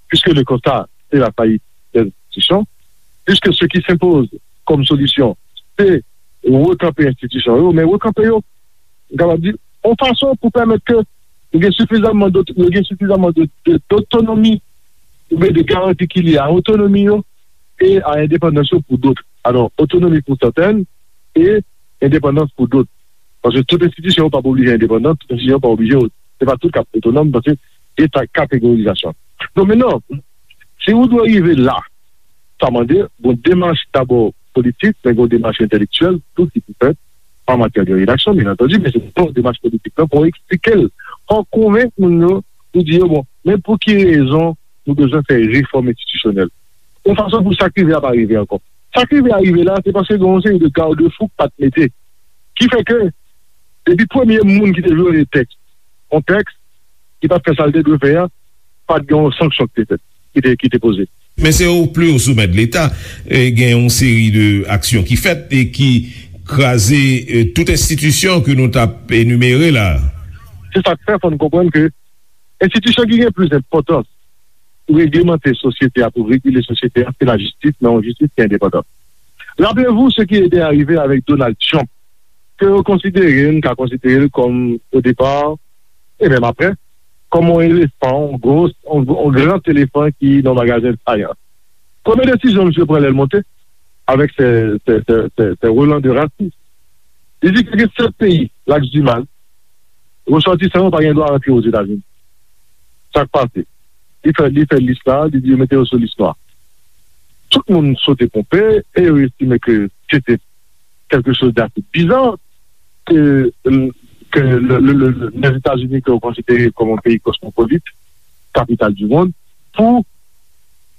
Puisque le constat, c'est la faillite des institutions, puisque ce qui s'impose comme solution, c'est rekanpe enstitisyon yo, men rekanpe yo, m kapab di, yon fason pou pèmèt ke yo gen sifizamman dot-, yo gen sifizamman de, de, dotonomi, oubyen de garanti ki lye a otonomi yo e a endepandans yo pou dot. Alò, otonomi pou sèten e endepandans pou dot. Paske tout enstitisyon yo p ap oblije endepandan, tout enstitisyon yo p ap oblije, se pa tout k ap otonòm, paske gen ta-, kategorizasyon. Donk, mentnan, si ou dwe rive la, sa mande yon demach dabò politik, men yon demach entèlektyèl tou ki pou fèt an matyè de redaksyon, byen antandi, men se yon demach politik la pou eksplike l, pou konvenk moun yo, pou di yo, bon, men pou ki rezon nou bezwen fè refòm enstitisyonèl. Yon fason pou sa k rive a pa rive ankò. Sa k rive a rive la, se paske gen yon seri de garde-fou k pa t mete. Ki fè ke, depi premye moun ki te vyole tèks, yon tèks, ki pa t fè sa l te dwe fè a, pa t gen yon sanksyon ki te fèt, ki te, ki te poze. Men se o pli o somè de Leta, e, gen yon seri de aksyon ki fèt e ki kraze, eh, tout enstitisyon ke nou t ap enimere la. Se sa k fè fò n konprann ke enstitisyon ki gen plis enpòtans pou reglemante sosyete a, pou regile sosyete a, se lajistis, men yon jistis ki endepandan. Rappelez-vous ce qui était arrivé avec Donald Trump, ke yo konsidere, n ka konsidere l kòm, o depa, e menm apre, kòm yon elefan, yon gwo, yon, yon gran elefan ki nan magazen de fayans. Premye desizyon misye pran lè l monte, avèk se, se, se, se, se Roland de Rassus. Li di ke gen sèt peyi, Laks Dimal, resòtisan yo pa gen dwa rantre Ozetazini. Sa k pase? Li fè, li fè lis la, li di yo mete yo sou lis nwa. Tout moun sote ponpe e yo estime ke se te quelque chose d'assez bizarre que, que le, le, le, le, Lèzetazini ke yo konsidere kòm yon peyi kosmopolit, kapital du monde, pou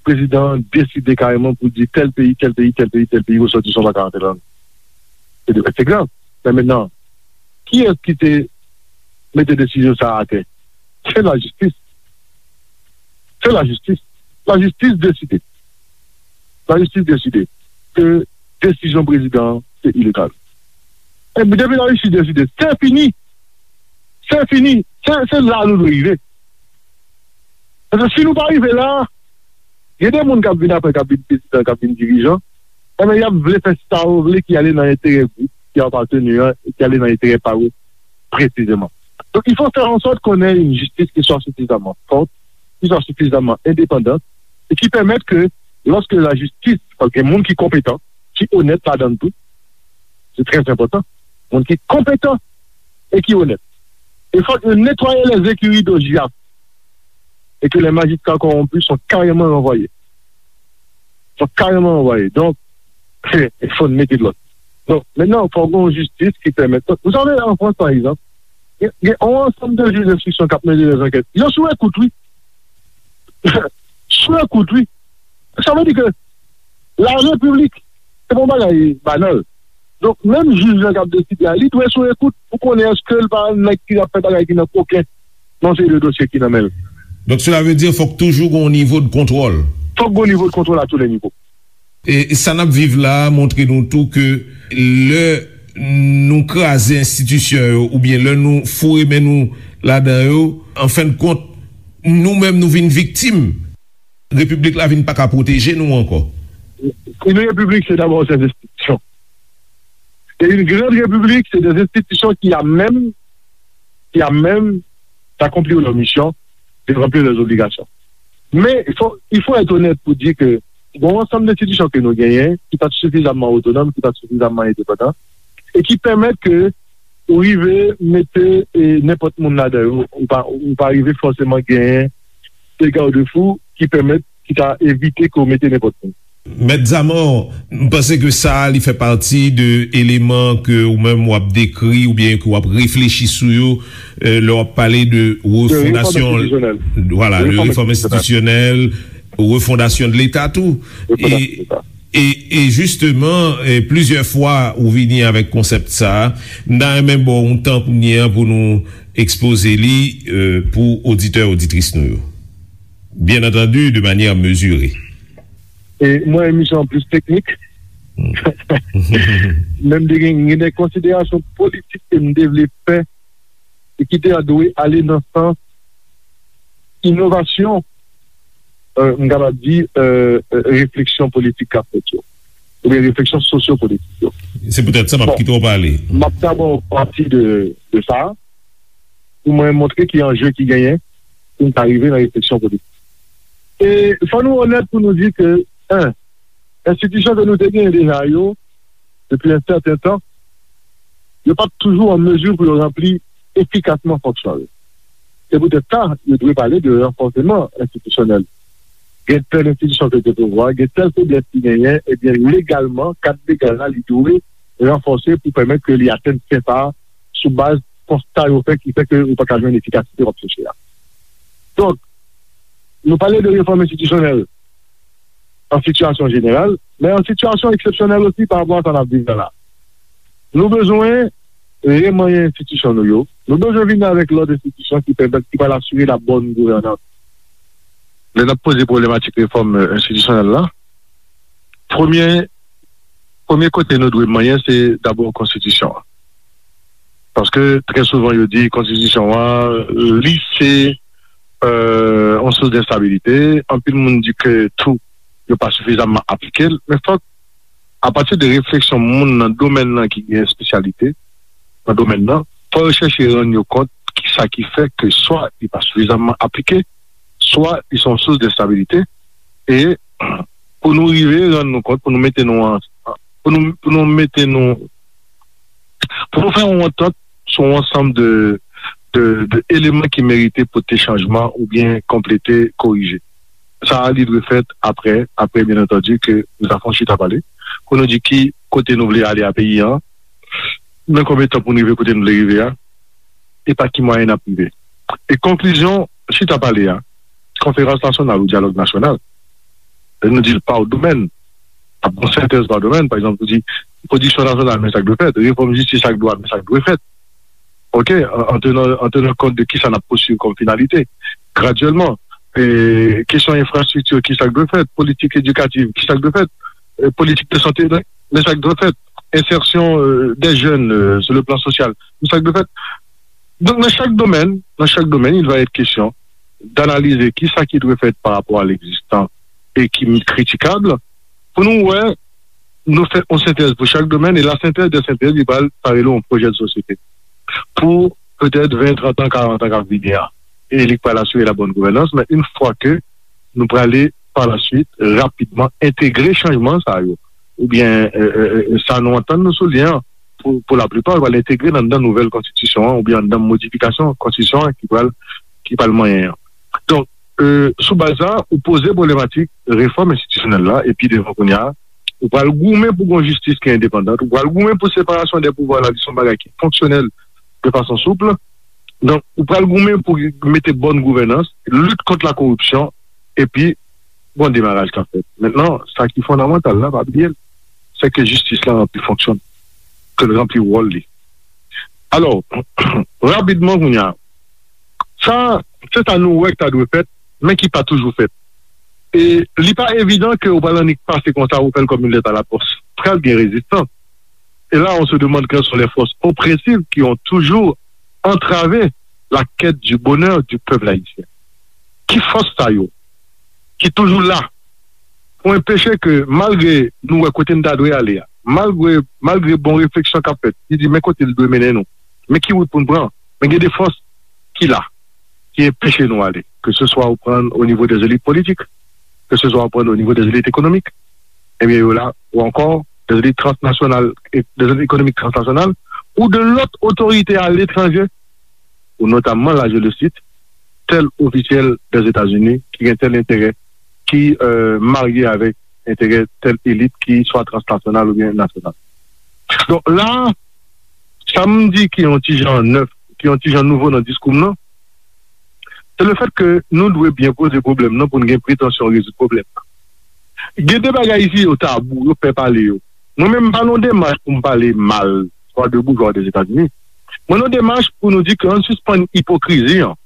prezidan an deside kareman pou di tèl peyi, tèl peyi, tèl peyi, tèl peyi, resòtisan pa ka rantre ladan. Se de, se grav. Men mentnan, kiyès ki te mete desizyon sa a atè? Se lajistis. Se lajistis. Lajistis deside. Lajistis deside ke desizyon prezidan an se ilegal. Epi depi lajistis deside, se fini. Se fini. Se, se la nou dwe rive. Paske si nou pa rive la, gen de moun k ap vin apre, k ap vin prezidan, k ap vin dirijan, enben, y ap vle fè sa yo vle ki ale nan enterè gwoup ki yo aparteni an, e ki ale nan enterè pa yo presizeman. Donc, il faut faire en sorte qu'on ait une justice qui soit suffisamment forte, qui soit suffisamment indépendante, et qui permette que, lorsque la justice, paske gen moun ki konpetan, ki onèt ladan l tou, se trè enpòtan, moun ki konpetan e ki onèt. E fòk yo netwaye les écuries d'O J A F et que les magistrats corrompus sont carrément renvoyés. Sont carrément renvoyés. Donc, il faut mettre de l'ordre. Donc, maintenant, il faut une justice qui permette. Vous savez, en France, par exemple, il y a, il y a un ensemble de juges d'instruction qui ont mené des enquêtes. Ils sont sous écoute, oui. Sou ekout, wi. Sa vle di ke la repiblik, se pa yon bagay banal. Donk, menm jij lan k ap deside a, li dwe sou ekout pou konnen èske l pa nèg ki ap fè bagay ki nan koken nan seri de dosye ki nan men l. Donc, cela veut dire, fòk toujou gon nivo de kontwòl. Fòk gon nivo de kontwòl à tous les niveaux. E sa n ap viv la a montre nou tou ke lè nou kraze enstitisyon yo, oubyen lè nou foure men nou ladan yo, an fen de kont, nou menm nou vin viktim. Repiblik la vin pa ka pwoteje nou ankò. Une république, c'est d'abord ses institutions. Et une grande république, c'est des institutions qui à même, qui à même d'accomplir leur mission, de remplir leurs obligations. Men, il faut, il faut être honnête pou di ke gon ansanm enstitisyon ke nou genyen, ki pa t sifizamman otonòm, ki pa t sifizamman endepandan, e ki pèmèt ke ou rive mete, e, nenpòt moun ladan yo, ou pa, ou pa rive fòseman genyen de garde-fou ki pèmèt, ki ka evite ke w mete nenpòt moun. Mèt Zamò, m panse ke sa a, li fè pati de eleman ke ou menm w ap dekri oubyen ke w ap reflechi sou yo, euh, lè w ap pale de refondasyon, vwala, de refòm enstitisyonèl, refondasyon de Leta tou. E, e, e jisteman, e, plizyè fwa ou vini avèk konsèp sa a, m ta renmen ba w yon tan kounye a pou nou ekspoze li, euh, pou oditè, oditris nou yo. Bien entendu, de manière mesurée. E mwen, emisyon an plis teknik. Men m te gen, gen de konsiderasyon politik ke m te vle fè e ki te dwe ale nan sans inovasyon, euh, m kapab di, euh, euh, refleksyon politik k ap fèt yo, oubyen refleksyon sosyopolitik yo. Se poutèt sa m ap kite w pale. M ap dabò pati de, de sa, pou mwen montre ki anje ki genyen pou n ta rive nan refleksyon politik. E fò nou onèt pou nou di ke, en, enstitisyon ke nou te genyen deja yo, depi yon sèten tan, yo pa t toujou an mezi pou yo ranpli efikasman fonksyon yo. Se poutèt sa, yo dwe pale de ranfòseman enstitisyonèl. Gen tèl enstitisyon ke te pouvwa, gen tèl feblès ki genyen, ebyen, legalman, kad legal la, li dwe ranfòse pou pèmèt ke li atenn sen sa a sou baz konsta yo fè ki fè ke ou pa ka jwenn efikasite w ap chèche a. Donk, nou pale de refòm enstitisyonèl an sitiyasyon jeneral, men an sitiyasyon eksepsyonèl osi pa rapò a sa n ap viv la la. Nou bezwen remanyen enstitisyon nou yo. Nou bezwen vin avèk lòt enstitisyon ki pèmèt, ki pral asire la bonne gouvernance. Lè n ap poze pwoblematik refòm, euh, enstitisyonèl la, premye Premye kote nou dwe manyen, se dabò konstitisyon an. Paske trè souvan, yo di konstitisyon an, li se yon sous denstabite. Anpil moun di ke tou, yo pa sifizamman aplike l. Men fòk, apati de refleksyon moun nan domèn nan ki gen espesyalite nan domèn nan, fò yo chèche rann yo kont ki sa ki fè ke swa li pa sifizamman aplike, swa li se yon sous denstabite. E pou nou rive rann nou kont, pou nou mete nou an, pou nou, pou nou mete nou, pou nou fè yon antant sou yon ansanm de, de, de eleman ki merite pote chanjman oubyen konplete, korije. Sa a, li dwe fèt apre, apre, byen antandi, ke nou ta fè yon chita pale, pou nou di ki kote nou vle ale a peyi an, nan konbyen tan pou nou rive kote nou vle rive a, e pa ki mwayen n ap rive. E konklizyon chita pale a, konferans nasyonal ou dyalòg nasyonal, nou di l pa domèn, ap gen sentèz pa domèn, pa egzanp, ou di, pwodiksyon nasyonal, men sa k dwe fèt, refòm jistis ak dwa, men sa k dwe fèt. Ok, an, an tenan, an tenan kont de kisa n ap pousuiv kòm finalite, gradyèlman, e kesyon enfrastrikti, kisa k dwe fèt, politik edikativ, kisa k dwe fèt, e politik de sante, men sa k dwe fèt, ensèsyon, e, dè jèn, e, sou le plan sosyal, men sa k dwe fèt. Donk, nan chak domèn, nan chak domèn, il va être question d'analyser kisa ki dwe fèt pa rapò a l'existant e ki kritikab, pou nou wè, nou fè yon sentèz pou chak domèn, e la synthèse des synthèses, li pral parèt yon pwojè de sosyete pou petèt ven, trant an, karant an k ap vini an. E li pral asire la bonne gouvernance, men yon fwa ke nou prale pa la suit, rapidman, entegre chanjman sa yo, oubyen, e, e, e, sa nou antann nou sou li an, pou, pou laplipa, pral entegre nan, nan nouvèl konstitisyon an, oubyen nan modifikasyon konstitisyon an ki pral, ki pral manyen an. Donk, e, sou baz sa, ou poze pwoblematik refòm enstitisyonèl la, epi devan kounye a, ou pral goumen pou gon jistis ki endepandan, ou pral goumen pou separasyon dè pouvwa la, li se yon bagay ki fonksyonèl de fason soup. Donk, ou pral goumen pou mete bòn gouvènans, lit kont la koripsyon, epi gon demaraj k ap fèt. Mentnan, sa ki fondamantal la, pa bliye l, se ke jistis la ranpli fonksyon l, ke l ranpli wòl li. Alò, rapidman kounye a, sa, se sa nou wè k ta dwe fèt, men ki pa toujou fèt. E li pa evidan ke ou pral annik pase konsa, ou fè l kòm yon lèt a la pòs. Pral gen rezistans. Et là, on se demande quelles sont les forces oppressives qui ont toujours entravé la quête du bonheur du peuple haïtien. Ki fòs sa yo ki toujou la pou enpeche ke, malgre nou wè kote n ta dwe ale a, malgre, malgre bon refleksyon k ap fèt, ki di men kote l dwe mennen nou, men ki wout pou n pran, men gen de fòs ki la, ki enpeche nou ale, ke se swa ou pran o nivo dè elit politik, ke se swa ou pran o nivo dè elit ekonomik, ebyen, yo la, ou ankò, dè elit transnasyonal, e dè elit ekonomik transnasyonal, ou de lòt otorite aletranje, ou notamman, la, je le cite, tèl ofisyèl dè Etazini ki gen tèl enterè, ki, e, marye avèk enterè tèl elit ki swa transnasyonal oubyen nasyonal. Donk, la, sa m di ki yon ti jan nèf, ki yon ti jan nouvo nan diskou m nan, se le fèt ke nou dwe byen poze pwoblèm nan pou n gen pretansyon rezoud pwoblèm nan. Gen de bagay isi yo tabou, yo pè pale yo. Mwen menm, m pa nan demach pou m pale mal, swa de boujwa de Etazini. Mwen nan demach pou nou di ke ann sispann ipokrizi an.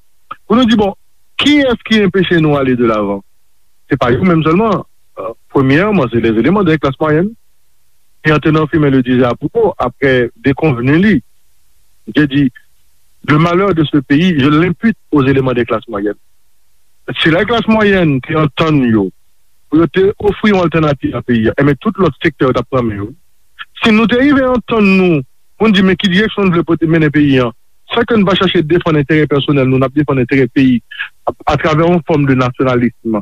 Pou nou di, bon, kiyès ki enpeche nou ale de lavan? Se pa yo menm sèlman. E, premyèman, se les éléments de classe moyenne. Et Antonin Firmin le disait à propos, après déconvenu li, je dis, le malheur de ce pays, je l'impute aux éléments des classes moyennes. Si la klas mwayèn te antann yo, pou yo te ofri yon altènativ a peyi a, enben tout lòt sektè yo t ap pran men yo. Si nou te rive antann nou, pou n di men ki direksyon n vle pote mennen peyi a, san ke n pa chache defann enterè pèsonèl nou, n ap defann enterè peyi a, atravè yon fòm de nasyonalism,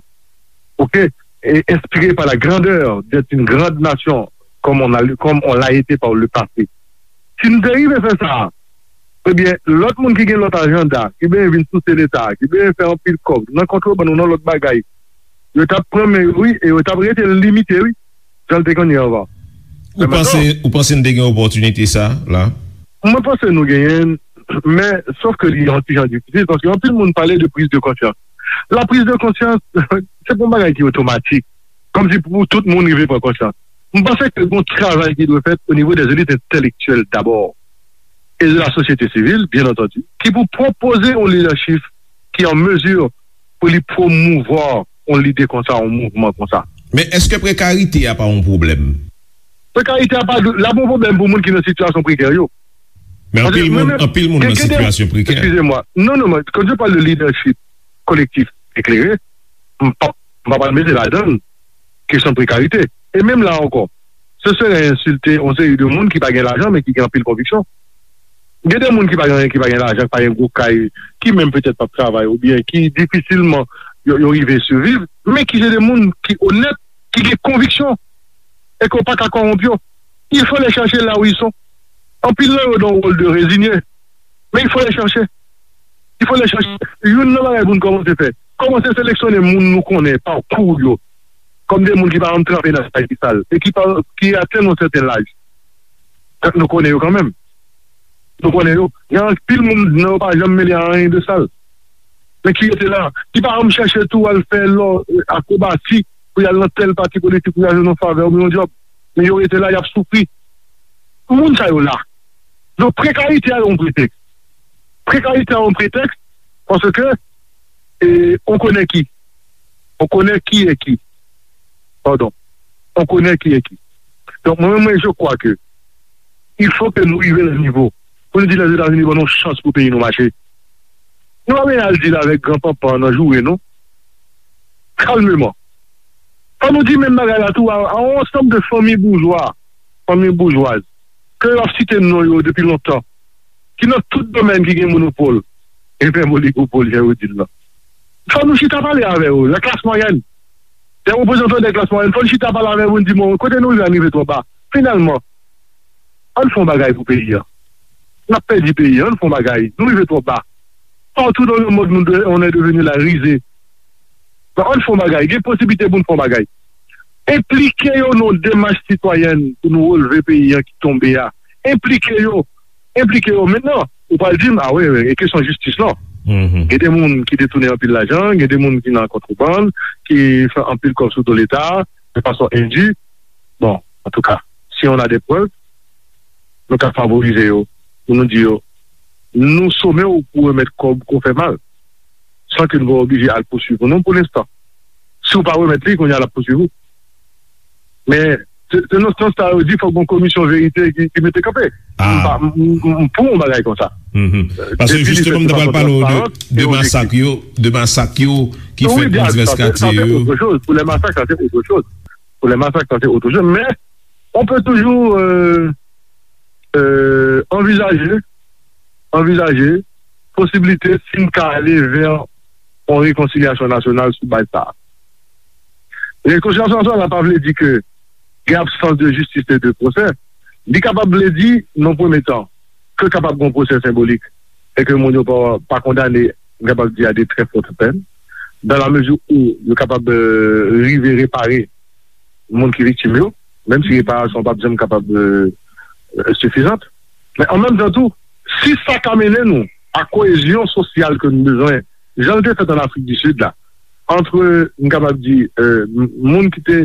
ok, et inspiré par la grandeur d'être une grande nation, comme on a, comme on l'a été par le passé. Si n te rive fè sa, ebyen, lòt moun ki gen lòt ajanda, ki benyen vin souse Leta, ki benyen fè anpil kòb, nan kontrebann ou nan lòt bagay, yo t ap pran men yo, wi, e yo t ap rete limite, wi, jan l te konn ye anvan. Ou panse, ou panse n te gen opòtinite sa, la? Mwen panse nou genyen l, men, sòf ke li yon ti jan difisil, paske anpil moun pale de prise de conscience. La prise de conscience, se pa yon bagay ki otomatik. Kòmsi pou tout moun rive pran konsyans. M panse ke gon travay ki dwe fèt o nivo dè elit entèlektyèl dabò, e de la sosyete sivil, byen antandi, ki pou pwopoze yon lidèchip ki an mezi pou li pwomouvwa yon lide konsa, yon mouvman konsa. Men èske prekarite a pa yon pwoblèm? Prekarite a pa dwe, l ap yon pwoblèm pou moun ki nan sitiyasyon prekè yo. Men anpil moun, anpil moun nan sitiyasyon prekè. Excusez-moi. Non, non, non, quand je parle de leadership collectif éclairé, m pa, m pa pral mete ladan l kesyon prekarite. E menm la ankò, se sere ensilte yon seri de moun ki pa gen lajan, men ki gen anpil konviksyon. Gen de moun ki pa gen, ki pa gen lajan, ki pa gen gwo kay, ki menm petèt p ap travay, oubyen ki difisilman yo, yo rive siviv, men ki se de moun ki onèt, ki gen konviksyon, e ke w pa ka kòwonp yo. Il faut les chercher là où ils sont. Anpil nan yo dans un rôle de résigné. Mais il faut les chercher. Il faut les chercher. Youn nan bagay pou n kòmanse fè, kòmanse seleksyone moun nou konnen pakou yo, kòm de moun ki pa janm tranpe nan bagay ki sal e ki pa, ki atenn yon sèten laj. Tank nou konnen yo kanmenm. Nou konnen yo. Gen anpil moun nan yo pa janm mele a anyen de sal. Men ki rete la, ki pa janm chèche tou al fè lò, akrobasi pou y al nan tèl pati politik pou y al jwenn yon favè oubyen yon djòb. Men yo rete la, y ap soufri. Moun sa yo la. Donk, prekarite a yon pretèks. Prekarite a yon pretèks paske, e, on connaît qui. On connaît qui est qui. Pardon. On connaît qui est qui. Donk, mwen menm, mwen, je crois que il faut que nou rive nan nivo pou nou di Lèzetazini ban nou chans pou peyi nou mache. Nou pa bezwen al di l avèk gran panpan nan joure, non. Kalmeman. Fò nou di menm bagay la tou a, a yon ansanm de fanmi boujwa, fanmi boujwaz, ke yo ap site non yo depi lontan, ki nan tout domèn ki gen monopòl, e menm oligopòl, jan yo di l lan. Fò nou chita pale avè yo, la klas mwayèn. Dè reprezantan dè klas mwayèn, fò nou chita pale avè yo pou n di, bon, kote nou rive a rive twò ba. Finalman, ann fè yon bagay pou peyi a. N ap pèdi peyi a, ann fè yon bagay. Nou rive twò ba. Partout dans le monde, nous de- on est devenu la risée. Donk, ann fè yon bagay. Gen posiblite pou n fè yon bagay. Enplike yo nan yon demach sitwayèn pou nou releve peyi a ki tonbe a. Enplike yo. Enplike yo. Mentnan, ou pral di m, a wi, wi, e kesyon jistis lan. Gen de moun ki detounen anpil lajan, gen de moun ki nan kontrebann, ki fè anpil kòb sou do Leta, de fason endi. Bon, antouka, si on a des preuves, nou ka favorize yo, pou nou di yo, nou some w pou remèt kòb ke w fè mal, san ke nou pa oblije al pouswiv ou non pou lenstan. Si w pa remèt li, kounye a l ap pouswiv ou. Men, se se nan sans sa yo di fòk gon komisyon verite ki, ki mete kanpe. M pa, m, m, m pou yon bagay konsa. Paske jisteman, m ta pral pale w de, de masak yo, de masak yo ki fèt nan divès katye yo. Pour les massacres, ça, c'est autre chose. Pour les massacres, ça, c'est autre chose. Mais on peut toujours euh, euh, envisager, envisager posiblite si n ka ale vè yon rekonsilyasyon nasyonal sou baz sa a. Rekonsilyasyon nasyonal la pa vle di ke gen absans de jistis e de pwosè. Li kapab vle di, nan premye tan, ke kapab gen yon pwosè senbolik e ke moun yo pa, pa kondane, m kapab di, a de très fortes peines, dans la mesure où yo kapab euh, rive repare moun ki viktim yo, menm si reparasyon p ap janm kapab euh, euh, sifizant. Men an menm tan tou, si sa ka mennen nou a koyezyon sosyal ke nou bezwen, jan l te fèt an Afrik di Sid la, antre, m kapab di, euh, m- moun ki te,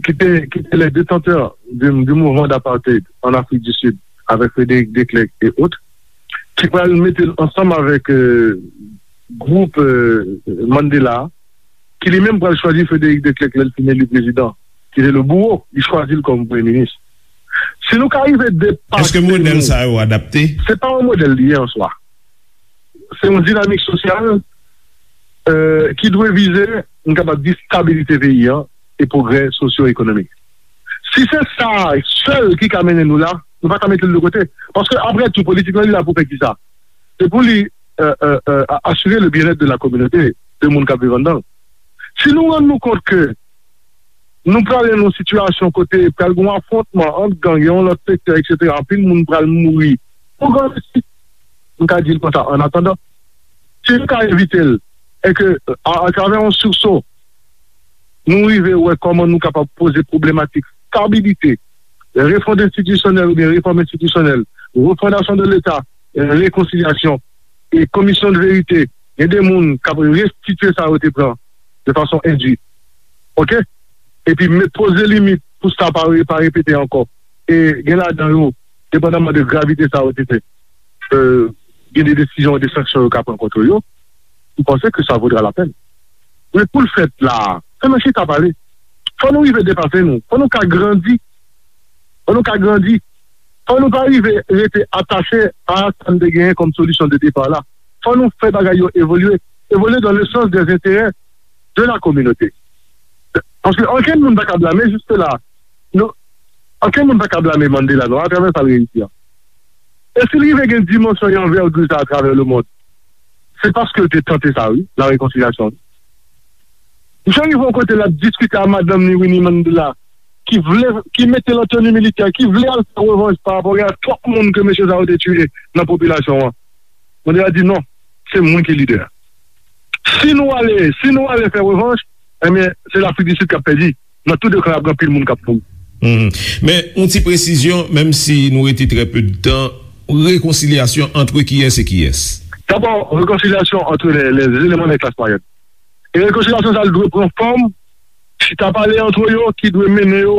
ki te, ki te les détenteurs du, du mouvement d'apartheid en Afrique du Sud, avec Frédéric Declercq et autres, ki pral mete l ansanm avèk euh, gwoup euh, Mandela, ki li menm pral chwazi Frédéric Declercq lè l fin eli prezidan, ki te le bouro, li chwazi l kòm premye minis. Si nou ka rive depase Èske modèl nou, sa yo adapte? Se pa yon modèl li ye an swa. Se yon dinamik sosyal euh, ki dwe vize, m kapab di, stabilite peyi an e pwogrè sosyo-ekonomik. Si se sa sèl ki ka mennen nou la, nou pa ka mete l de kote. Paske, apre tou, politik lan, li la pou fè kisa? Se pou li euh, euh, euh, a- asire le bien-être de la communauté, de moun k ap viv anndan l. Si nou rann nou kont ke nou prale nan yon sitiyasyon kote pral gen yon afwontman ant gang e yon lòt sektè, etsetera, anpil moun pral mouri pou grandisi, m ka di l konsa, an atandan, si n ka evite l, e ke, a- atravè yon sursaut, nou rive wè kòman nou kapab poze pwoblematik stabilite, refond enstitisyonèl oubyen refòm enstitisyonèl, refondasyon de Leta, rekonsilyasyon, e komisyon de verite, gen de moun k ap restitye sa yo te pran de fason endi. Oke? Epi met poze limit pou sa pa re- pa repete ankò. E gen ladan yo, depandaman de gravite sa yo te fè, euh, gen de desizyon, de sanksyon yo ka pran kont yo, m panse ke sa vodra la pèn. Men pou l fèt la, fò nou chita pale. Fò nou rive depase nou. Fò nou ka grandi. Fò nou ka grandi. Fò nou pa rive rete atache a sa n te genyen kòm solisyon de depa la. Fò nou fè bagay yo evolye. Evolye dans le sens des intérêts de la communauté. Paske ankenn moun pa ka blame, jis la, nou, ankenn moun pa ka blame Mandela non, atravè sa l reyisi a. E si l rive gen dimansyon e anvègi sa atravè lemond, se paske l te tante sa, wi, la rekonsilyasyon. Misye rive yon kote l ap diskite a madanm ni Winnie Mandela, ki vle, ki mete l an teni militè, ki vle al fè revanj pa rapò gen twòp moun ke mesye sa yo te tiye nan popilasyon an. Mandela di non, se mwen ki lidè. Si nou ale, si nou ale fè revanj, ebyen, se Lafrik di Sid k ap pèdi. Nan tou de kan, ap gen anpil moun k ap mouri. Men yon ti presizyon, menm si nou rete trè pe de tan, rekonsilyasyon antre kiyès e kiyès? Dabò, rekonsilyasyon antre lè, lè eleman de klas mwayèn. E rekonsilyasyon sa dwe pran fòm chita pale antre yo ki dwe mennen yo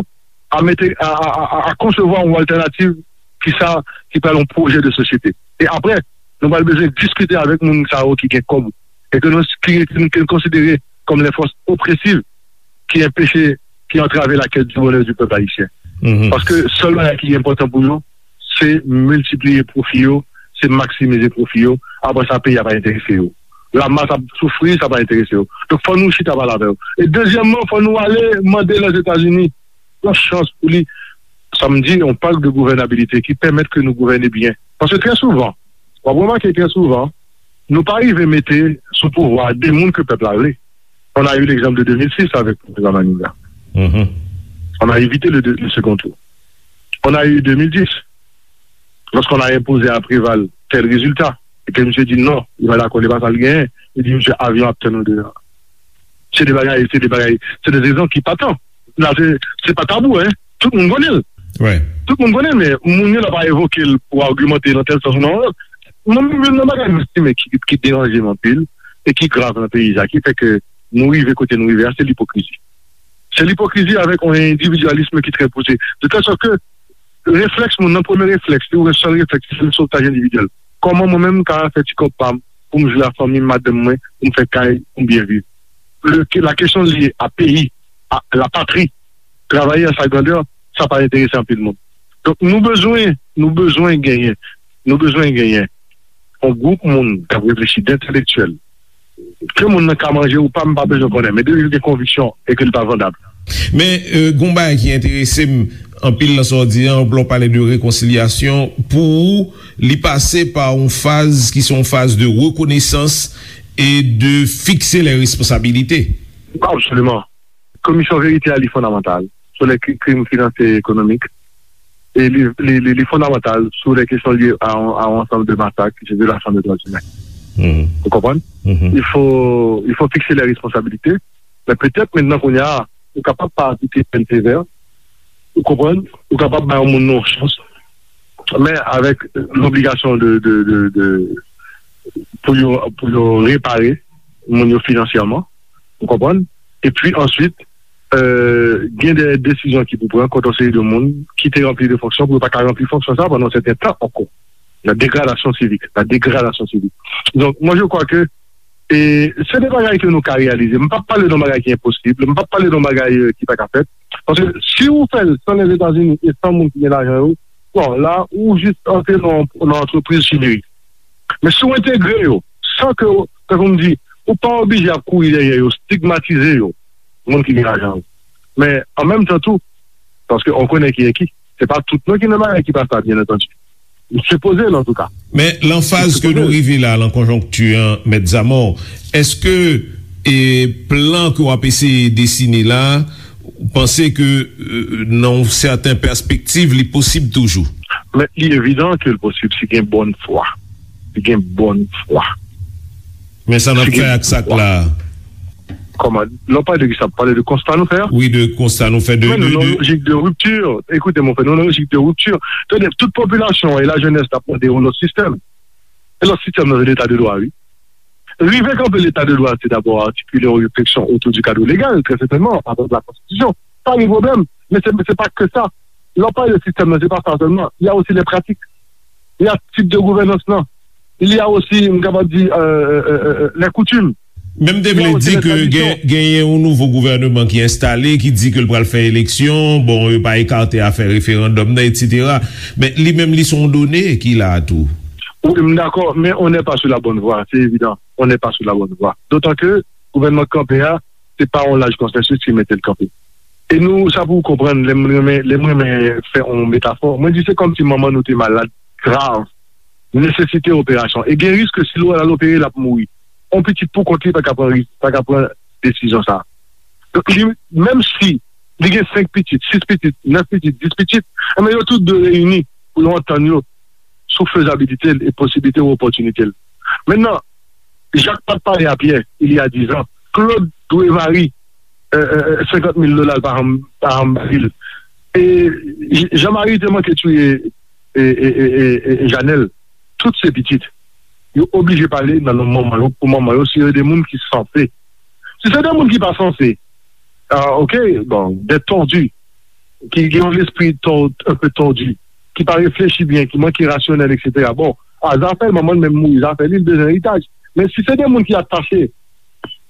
a mete a, a, a, a, a konsevwa yon altènativ ki sa ki pral yon pwojè de sosyete. E apre, nou pral bezwen diskite avèk moun sa yo ki gen kòb e ke nou ki, ki nou konsidere kòm les forces oppressives ki enpeche, ki antrave la quête du bonheur du peuple haïtien. Paske sèl bagay ki enpòtan pou yo, se miltipliye pwofi yo, se maksimize pwofi yo. Apre sa, peyi a pa enterese yo. Lamas ap soufri, sa pa enterese yo. Donk, fò nou chita pale avè yo. E dezyèmman, fò nou ale mande Lèzetazini yon chans pou li, sa m di, yon pak de gouvènabilite ki pèmèt ke nou gouvène byen. Paske trè souvan, w ap remake trè souvan, nou pa rive mete sou pouvwa de moun ke pèp la vle. On a eu l'exemple de deux mille six avec le président Manigat. On a évité le, le second tour. On a eu deux mille dix, lorsqu'on a imposé à Préval tel résultat, e ke misye di non, li pa dakò, li pa sa l genyen, li di misye avyon ap tann ou deyò. Se de bagay, se de bagay, se de rezon ki pa tan. La, se, se pa tabou, hein. Tout moun konnen l. Tout moun konnen l, men moun yo la pa evoke l pou agimante nan tèl sans ou nan yon lòt. Mwen menm, youn nan bagay m estime ki, ki deranje m anpil e ki grav nan peyi sa, ki fè ke nou rive kote nou rive a, se lipokrizi. Se lipokrizi avèk yon endividyalism ki trè pouse. De tèl sòt ke reflèks moun nan, premye reflèks li, ou sèl reflèks li, se sotaj endividyèl. Kòman mwen menm m ka fè ti kòb pa m pou m jwe a fanmi m, madanm mwen, pou m fè kay, pou m byen viv? Le, la kesyon lye a peyi, a la patri, travay an sa grandè, sa pa enterese anpil moun. Donk nou bezwen, nou bezwen genyen, nou bezwen genyen yon gwoup moun k ap reflechi, d entelektyèl, ke moun nan ka manje ou pa, m pa bezwen konnen, men depi l gen konviksyon e ke li pa vandab. Men, euh, gon bagay ki enterese m anpil nan sa w di an, lè w pale de rekonsilyasyon, pou ou, li pase pa yon faz ki se yon faz de rekonesans e de fikse lè responsabilite. Absoliman. Komisyon verite a, li fondamantal sou lè kri- krim finanse e ekonomik. E li, li, li, li fondamantal sou lè kesyon lye a, a yon ansanm de masak, ki se vyolasyon de dwa imen. Ou konprann? Il faut, il faut fixer les responsabilités. Men petèt, mentnan, kounye a, ou kapab pa aplike pèn sevè. Ou konprann? Ou kapab bay yon moun nan yon chans. Men avèk lobligasyon de, de, de, de, pou yo, pou yo repare moun yo finansyèman. Ou konprann? Epi answit, euh, gen de desizyon ki pou pran kont yon seri de moun ki te ranpli de fonksyon pou yo pa ka ranpli fonksyon sa pandan yon sèten tan ankò. La dégradation civique, la dégradation civique. Donc, moi, je crois que e se de bagay ke nou ka reyalize. M p ap pale de yon bagay ki enposib, m p ap pale de yon bagay, euh, ki pa ka fèt. Paske si ou fè l san Lèzetazini e san moun ki gen lajan yo, bon, la, ou jis antre nan, nan antrepriz chimerik. Men si w entegre yo, san ke, tankou m di, ou pa oblije ap kouri dèyè yo, stigmatize yo, moun ki gen lajan yo. Men, an menm tan tou, paske on konnen ki e ki, se pa tout non ki nan bagay ki pa sa, byen antandi. M sipoze l, antouka. Men, lan faz ke nou rive la, lan konjonkti an, Mèt Zamò, èske e plan ke w ap eseye desine la, ou panse ke, euh, nan yon sèten pèspektiv, li posib toujou? Men, li evidan ke l posib si gen bòn fwa. Li gen bòn fwa. Men sa n ap fè ak sa k la a? Kòman? Lè w pale de kisa? Pale de konsta nou fè a? Wi, de konsta nou fè. De, men nou nan lojik de ripti. Ekoute, mon frè, nou nan lojik de ripti. Tande, tout popilasyon an e lajenès t ap mande yon lòt sistèm. E lòt sistèm nan, se leta de dwa, wi. Rive kanpe leta de dwa, se dabò atikile yon refleksyon otou di kad legal, trè sètènman, avèk la konstitisyon. Pa gen pwoblèm. Men se, se pa ke sa. Lè w pale de sistèm nan, se pa sa sèlman. Il y a aussi les pratiques. Il y a tip de gouvènans lan. Il y a aussi, m kapab di, euh, euh, euh, euh, les coutumes. Men m te vle di ke gen, genyen yon nouvo gouvènman ki enstale, ki di ke l pral fè eleksyon, bon, yo pa ekate afè referandòm nan, etsetera. Men li menm, li se yon done ki la a tou. Wi, m dakò, men on n'est pas sur la bonne voie, c'est évident. On n'est pas sur la bonne voie. D'autant que gouvènman k kanpe a, se pa yon laj konsansis ki mete l kanpe. E nou, sa pou w konprann, lè m renmen, lè m renmen fè yon metafò, mwen di se kòmsi manman nou te malad grav, nesesite operasyon. E gen risk ke si l al opere, l ap mouri. Yon pitit pou kont li pa ka pran risk, pa ka pran desizyon sa a. Donk, li, menm si li gen senk pitit, sis pitit, nèf pitit, dis pitit, enben yo tout dwe reyini pou yo antann yo sou fezabilite l e posiblite ou opòtinite l. Mentnan, Jak pa t pale a Pyè, il y a dix ans, Claude dwe Marie, euh, euh, senkant mil dola l pa janm, pa janm ba li l. E J- Jean Marie te manke touye e, e, e, e, e Janèl. Tout se pitit. Yo oblije pale nan non manman yo, pou manman yo, si yo de moun ki sanse. Si se de moun ki pa sanse, ah, ok, bon, des tordus, ki gen yon lespri tò- un peu tordu, ki pa reflechi byen, ki manke rasyonèl, etsetera. Bon, a zafè l, manman l menm mouri, zafè li, l bezwen eritaj. Men si se de moun ki atache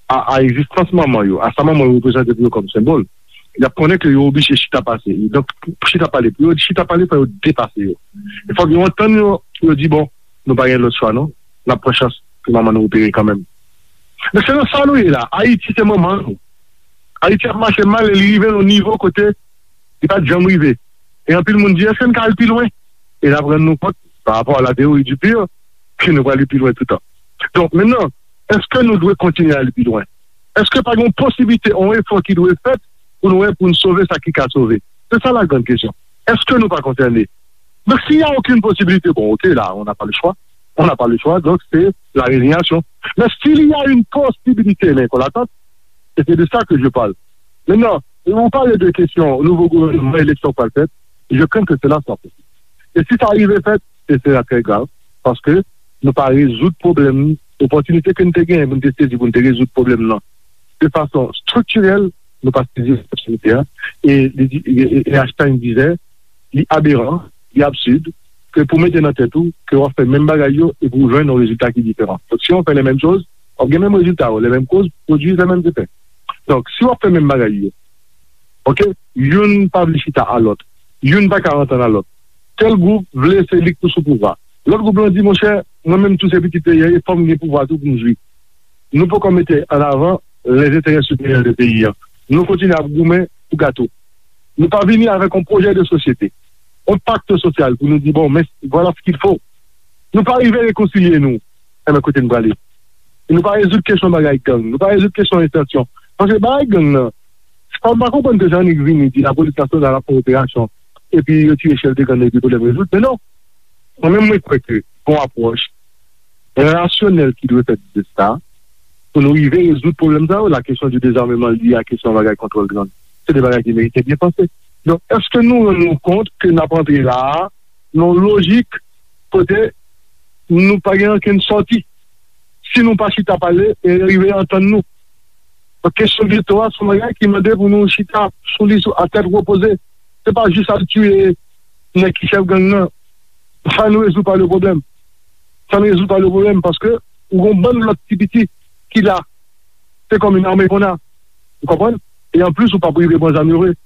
a, a egzistans manman yo, a sa manman yo reprezante pou yo kòm senbòl, y ap konnen ke yo oblije chita pase. Donk, pou chita pale, pou yo chita pale, fò yo depase yo. E fòk yo antann yo, pou yo di, bon, nou pa gen lòt chwa, non. N ap pran chans pou manman nou opere kanmenm. Men se nan sa nou ye la. Ayiti se manman nou. Ayiti ap mache mal e li rive nan yon nivo kote li pa t janm rive. E anpil moun di, èske n ka al pi lwen? E n ap rann nou kont, pa rapò a la théorie du pire, ke nou pral pi lwen toutan. Donk, mentnan, èske nou dwe kontinye al pi lwen? Èske pa gen yon posiblite, yon efò ki dwe fèt pou nou wè, pou n sove sa ki ka sove? Se sa la grande question. Èske nou pa konsène? Donk, s'il y a aucune possibilité, bon, ok, là, on n'a pas le choix. On n'a pas le choix, donc c'est la résignation. Mais s'il y a une possibilité, men kon latant, e se de sa ke je parle. Mentnan, ou pale de kesyon nouvo gouvènman, eleksyon k pral fèt, je crains que cela soit possible. E si sa rive fèt, se sera trè grav, paske nou pa rezoud pwoblèm, opòtinite ke n te genyen pou n te sezi pou n te rezoud pwoblèm nan de fason striktirèl, nou pa sezi opòtinite a, e, e, e, e Einstein disait, li aberan, li absid, ke pou mete nan tèt ou ke w ap fè menm bagay yo e pou w jwenn yon rezilta ki diferan. Donk, si w fè les mêmes choses, w ap gen menm rezilta yo, les mêmes causes produisent les mêmes effets. Donk, si w ap fè menm bagay yo, ok, youn pa vle chita a lòt, youn pa ka antann a lòt. Tèl gwoup vle se li k pou sou pouvwa. Lòt gwoup lan di, monchè, mwen menm tou se pitit peyi a, e fò m gen pouvwa tou pou m jwi. Nou poko mete an avan les intérêts supérieurs de peyi an. Nou kontinye ap goumen pou gato. Nou pa vini avèk yon pwojè de sosyete, yon pakt sosyal pou nou di, bon, men, voilà ce qu'il faut. Nou pa rive rekonsilye nou. Enben, kote n prale? Nou pa rezoud kesyon bagay gang. Nou pa rezoud kesyon estansyon. Paske bagay gang nan, sa m pa konprann ke Jean-Nic vini di lapolis nasyonal ap fè operasyon, epi yo tiye chèf de gang nan, epi pwoblèm rezoud. Men non. Mwen menm, mwen kwè ke gon apwòch rasyonèl ki dwe fèt de sa, pou nou rive rezoud pwoblèm sa yo, la question du désarmement lié à kesyon bagay kontwòl gang. Se de bagay ki merite byen panse. Donk, èske nou rann nou kont ke n ap antre la a, nan yon lojik kote nou pa gen ankenn sòti? Si nou pa chita pale e rive antann nou. Donk, kesyon geto a, se yon bagay ki mande pou nou chita sou li sou, a tèt repoze. Se pa jis al tiye nèg ki chèf gang nan. Sa ne résout pas le problème. Sa ne résout pas le problème, paske ou gon bann lòt ti piti ki la. Se kòm yon ame konn a. Ou konprann? E anplis, ou p ap rive pran zam yo vre.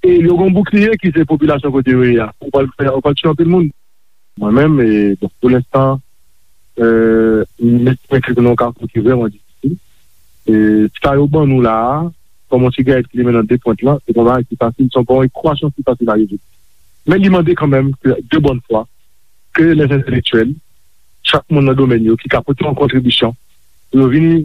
E yo gon boukliye ki se popilasyon kote yo ye a. Ou pral fè, ou pral tiye anpil moun. Mwen menm, e, bon, pou lenstan, e, m estime ke nou nan yon kafou ki vrèman difisil. E, sa yo ban nou la a, kòm yon sigarèt ki limen nan de pwent lan, se pa yon bagay ki fasil, se pa yon ekwasyon ki fasil a rezoud. Men li mande kanmenm ke, de bonne foi, ke les intellectuels, chak moun nan domèn yo, ki ka pote yon kontribisyon, pou yo vini